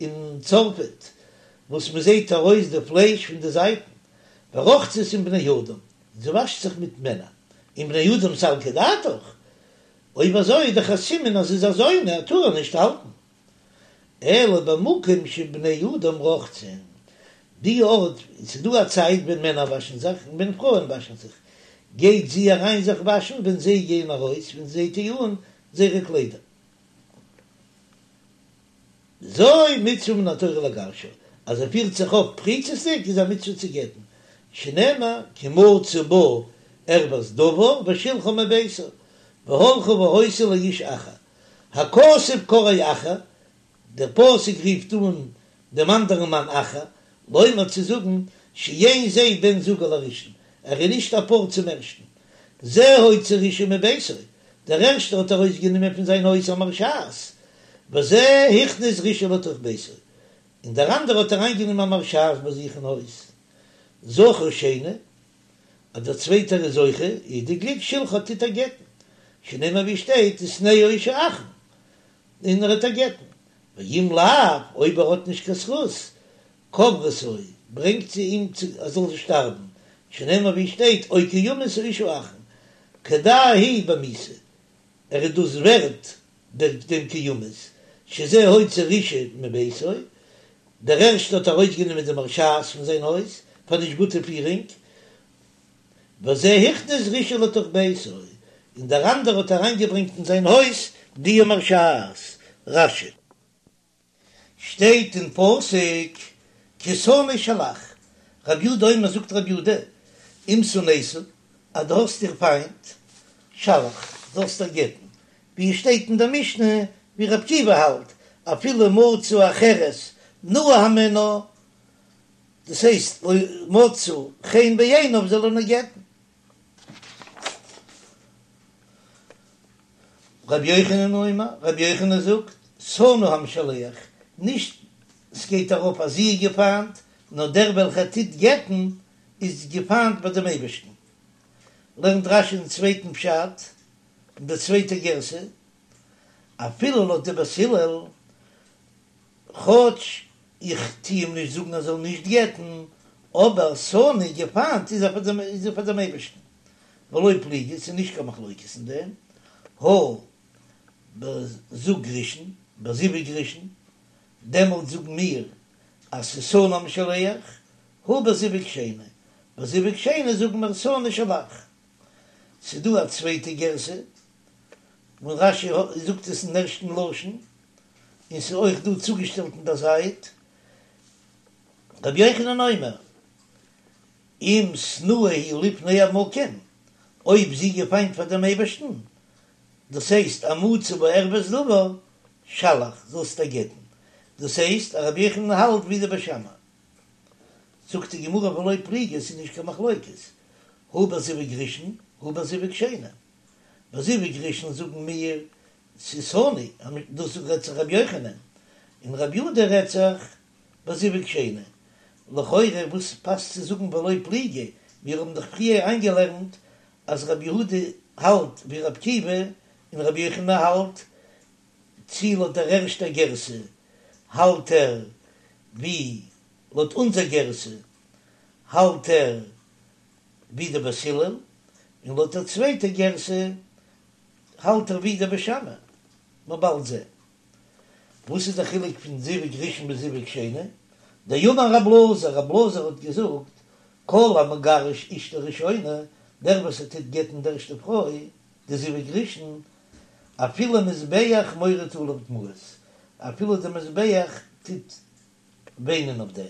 אין צרפת וואס מען זעט ארויס די פלייש פון די זייטן, ורוחצת עם בני אדם, זי וואשט זיך מיט מענער, עם בני אדם סלקא דעתך, אויב אזוי איז דאך א סימן אז זי איז א זונה, טאר ער נישט האלטן. אלא במקום שבני אדם רוחצין, די ארט, ס'איז דא א צייט ווען מענער וואשן זיך און ווען פרויען וואשן זיך, גייט זי אריין זיך וואשן ווען זיי גייען ארויס, ווען זיי טוען אן זייערע קליידער. זו מצוה מן התורה לגרשה, אז ער פירט זיך אויף פריצות'דיג איז א מצוה צו גט'ן, שנאמר כי מצא בה ערות דבר ושלחה מביתו, והלכה והיתה לאיש אחר, הכתוב קראו אחר, דער פסוק רופט אן דעם אנדערן מאן אחר, לומר צו זאגן שאין זה בן זוגה לראשון, ער איז נישט א פאר צום ערשטן. זה הוציא רשעה מביתו, דער ערשטער האט ארויסגענומען פון זיין הויז א מרשעת, וזה הכניס רשעה לתוך ביתו, און דער אנדערער האט אריינגענומען א מרשעת ביי זיך אין הויז. זכה שני, אז דער צווייטער איז זוכה, איז די גליק שלחה טוט ער גט'ן, שנאמר ווי שטייט ושנאה האיש האחרון, און ער וועט איר גט'ן, ואם לאו, אויב ער האט נישט קיין זכות, קוברתו, ברענגט זי אים צו ער זאל שטארבן, שנאמר ווי שטייט או כי ימות האיש האחרון, כדאי הוא במיתה, ער איז דאס ווערט דעם כי ימות, שזה הוציא רשעה מביתו, דער ערשטער האט ארויסגענומען די מרשעת פון זיין הויז פאר נישט גוטע פירונג, וזה הכניס רשעה לתוך ביתו, און דער אנדערער האט אריינגעברענגט אין זיין הויז די מרשעת. רש"י. שטייט אין פסוק כי תנא שלח, רב יודא אומר זאגט רב יודא, אם שנאת, אז דו האסט איר פיינט, שלח, זאלסט איר גט'ן, ווי עס שטייט אין דער משנה ווי רב עקיבא האלט, אפילו מצא אחרת נאה הימנה, דאס הייסט לא מצאה חן בעיניו זאל ער איר גט'ן. רבי יוחנן אומר, רבי יוחנן זאגט, שנוא המשלח, נישט ס'גייט ארויף אז זי איז געפיינט, נאר דער וועלכער טוט גט'ן איז געפיינט ביי דעם אייבערשטן. לערנט רש"י אין צווייטן פשט, אין דער צווייטער גירסא, אפילו לויט די בית הלל, כאטש איך טו אים נישט זאגן ער זאל נישט גט'ן, אבער שנוא געפיינט איז ער איז ער פאר דעם אייבערשטן, ולא פליגי, ס'איז נישט קיין מחלוקת אין דעם, הא בזוג ראשון, בזיווג ראשון, דעמאלט זאגן מיר אז ס'איז שנוא המשלח, הא בזיווג שני, בזיווג שני זאגן מיר שנא שלח. ס'איז דא א צווייטע גירסא. און רש"י זאגט עס אין ערשטן לשון, און ס'איז אויך דא צוגעשטעלט אין דער זייט, רבי יוחנן אומר, אם שנואה היא לפני המקום, אויב זי געפיינט פאר דעם אייבערשטן, דאס הייסט אז מצא בה ערות דבר, שלח, זאלסט איר גט'ן, דאס הייסט אז רבי יוחנן האלט ווי די בית שמאי. זאגט די גמרא ולא פליגי, עס איז נישט קיין מחלוקת, הא בזיווג ראשון הא בזיווג שני, בזיווג ראשון זאגן מיר ס'איז שנוי, דאס רעדט זיך רבי יוחנן, און רבי יהודה רעדט זיך בזיווג שני, לכאורה וואס פאסט צו זאגן ולא פליגי, מיר האבן דאך פריער איינגעלערנט אז רבי יהודה האלט ווי רבי עקיבא און רבי יוחנן האלט צי לויט דער ערשטער גירסא האלט ער ווי לויט אונזער גירסא האלט ער ווי די בית הלל, און לויט דער צווייטער גירסא האלט ער ווי די בית שמאי, מ'עט באלד זען. וואס איז דער חילוק פון זיווג ראשון ביז זיווג שני? דאמר רב אלעזר, רב אלעזר האט געזאגט, כל המגרש אשתו ראשונה, דער וואס ער טוט גט'ן די ערשטע פרוי, די זיווג ראשון, אפילו מזבח מוריד עליו דמעות, אפילו די מזבח טוט וויינען אויף דעם,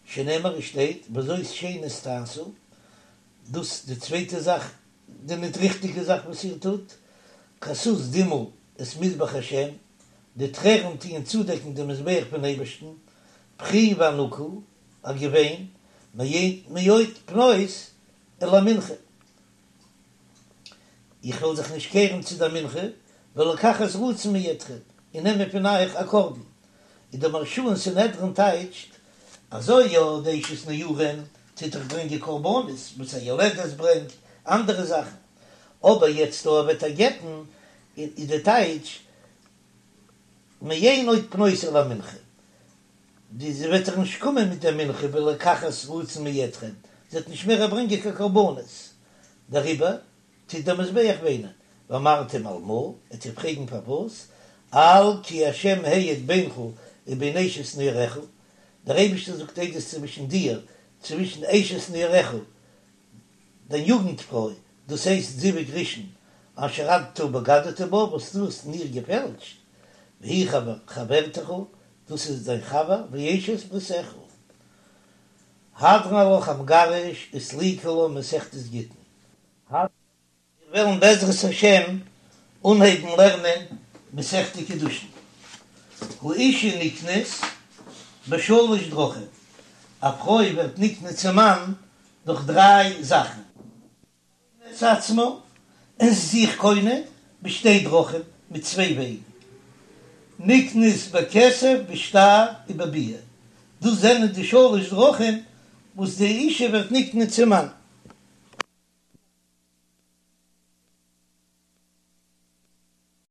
שנאמר עס שטייט וזאת שנית תעשו, דאס די צווייטע זאך, די ניט ריכטיגע זאך וואס איר טוט, כסות דמעה את מזבח השם, די טרערן טוען צודעקן דעם מזבח פון אייבערשטן, בכי ואנקה, א געוויין, מאין מאד פנות אל המנחה. איך וועל זיך נישט קערן צו דער מנחה, ולקחת רצון מידכם, און נעמען פון אייך א קרבן. און דער מהרש"א אין סנהדרין טייטשט, אזוי יא, די אשת נעורים טוט דאך ברענגען קרבנות, וואס א יולדת ברענגט, אנדערע זאכן, אבער יעצט דא וועט ער גט'ן, איז די טייטש, מאין עוד פנות אל המנחה, די זי וועט דאך נישט קומען מיט דער מנחה ולקחת רצון מידכם, זי וועט נישט מער ברענגען קיין קרבנות, דעריבער טוט דער מזבח וויינען, ואמרתם על מה, וועט איר פרעגן פארוואס, על כי השם העיד בינך ובין אשת נעוריך, דער אייבערשטער זאגט עדות צווישן דיר, צווישן אשת נעוריך, דיין יוגנט פרוי, דאס הייסט זיווג ראשון, אשר אתה בגדת בה, וואס דו האסט אין איר געפעלשט, והיא חברתך, דאס איז דיין חבר, ואשת בריתך. הדרן עלך המגרש וסליקא לה מסכת גיטין. מיר וועלן בעזרת השם אנהייבן לערנען מסכת קידושין. האשה נקנית בשלש דרכים, א פרוי ווערט נקנה צום מאן דורך דריי זאכן. את עצמה, זי איז זיך קונה בשתי דרכים, מיט צוויי וועגן, נקנית בכסף בשטר ובביאה, דאס זענען די שלש דרכים וואס די אישה ווערט נקנה צום מאן.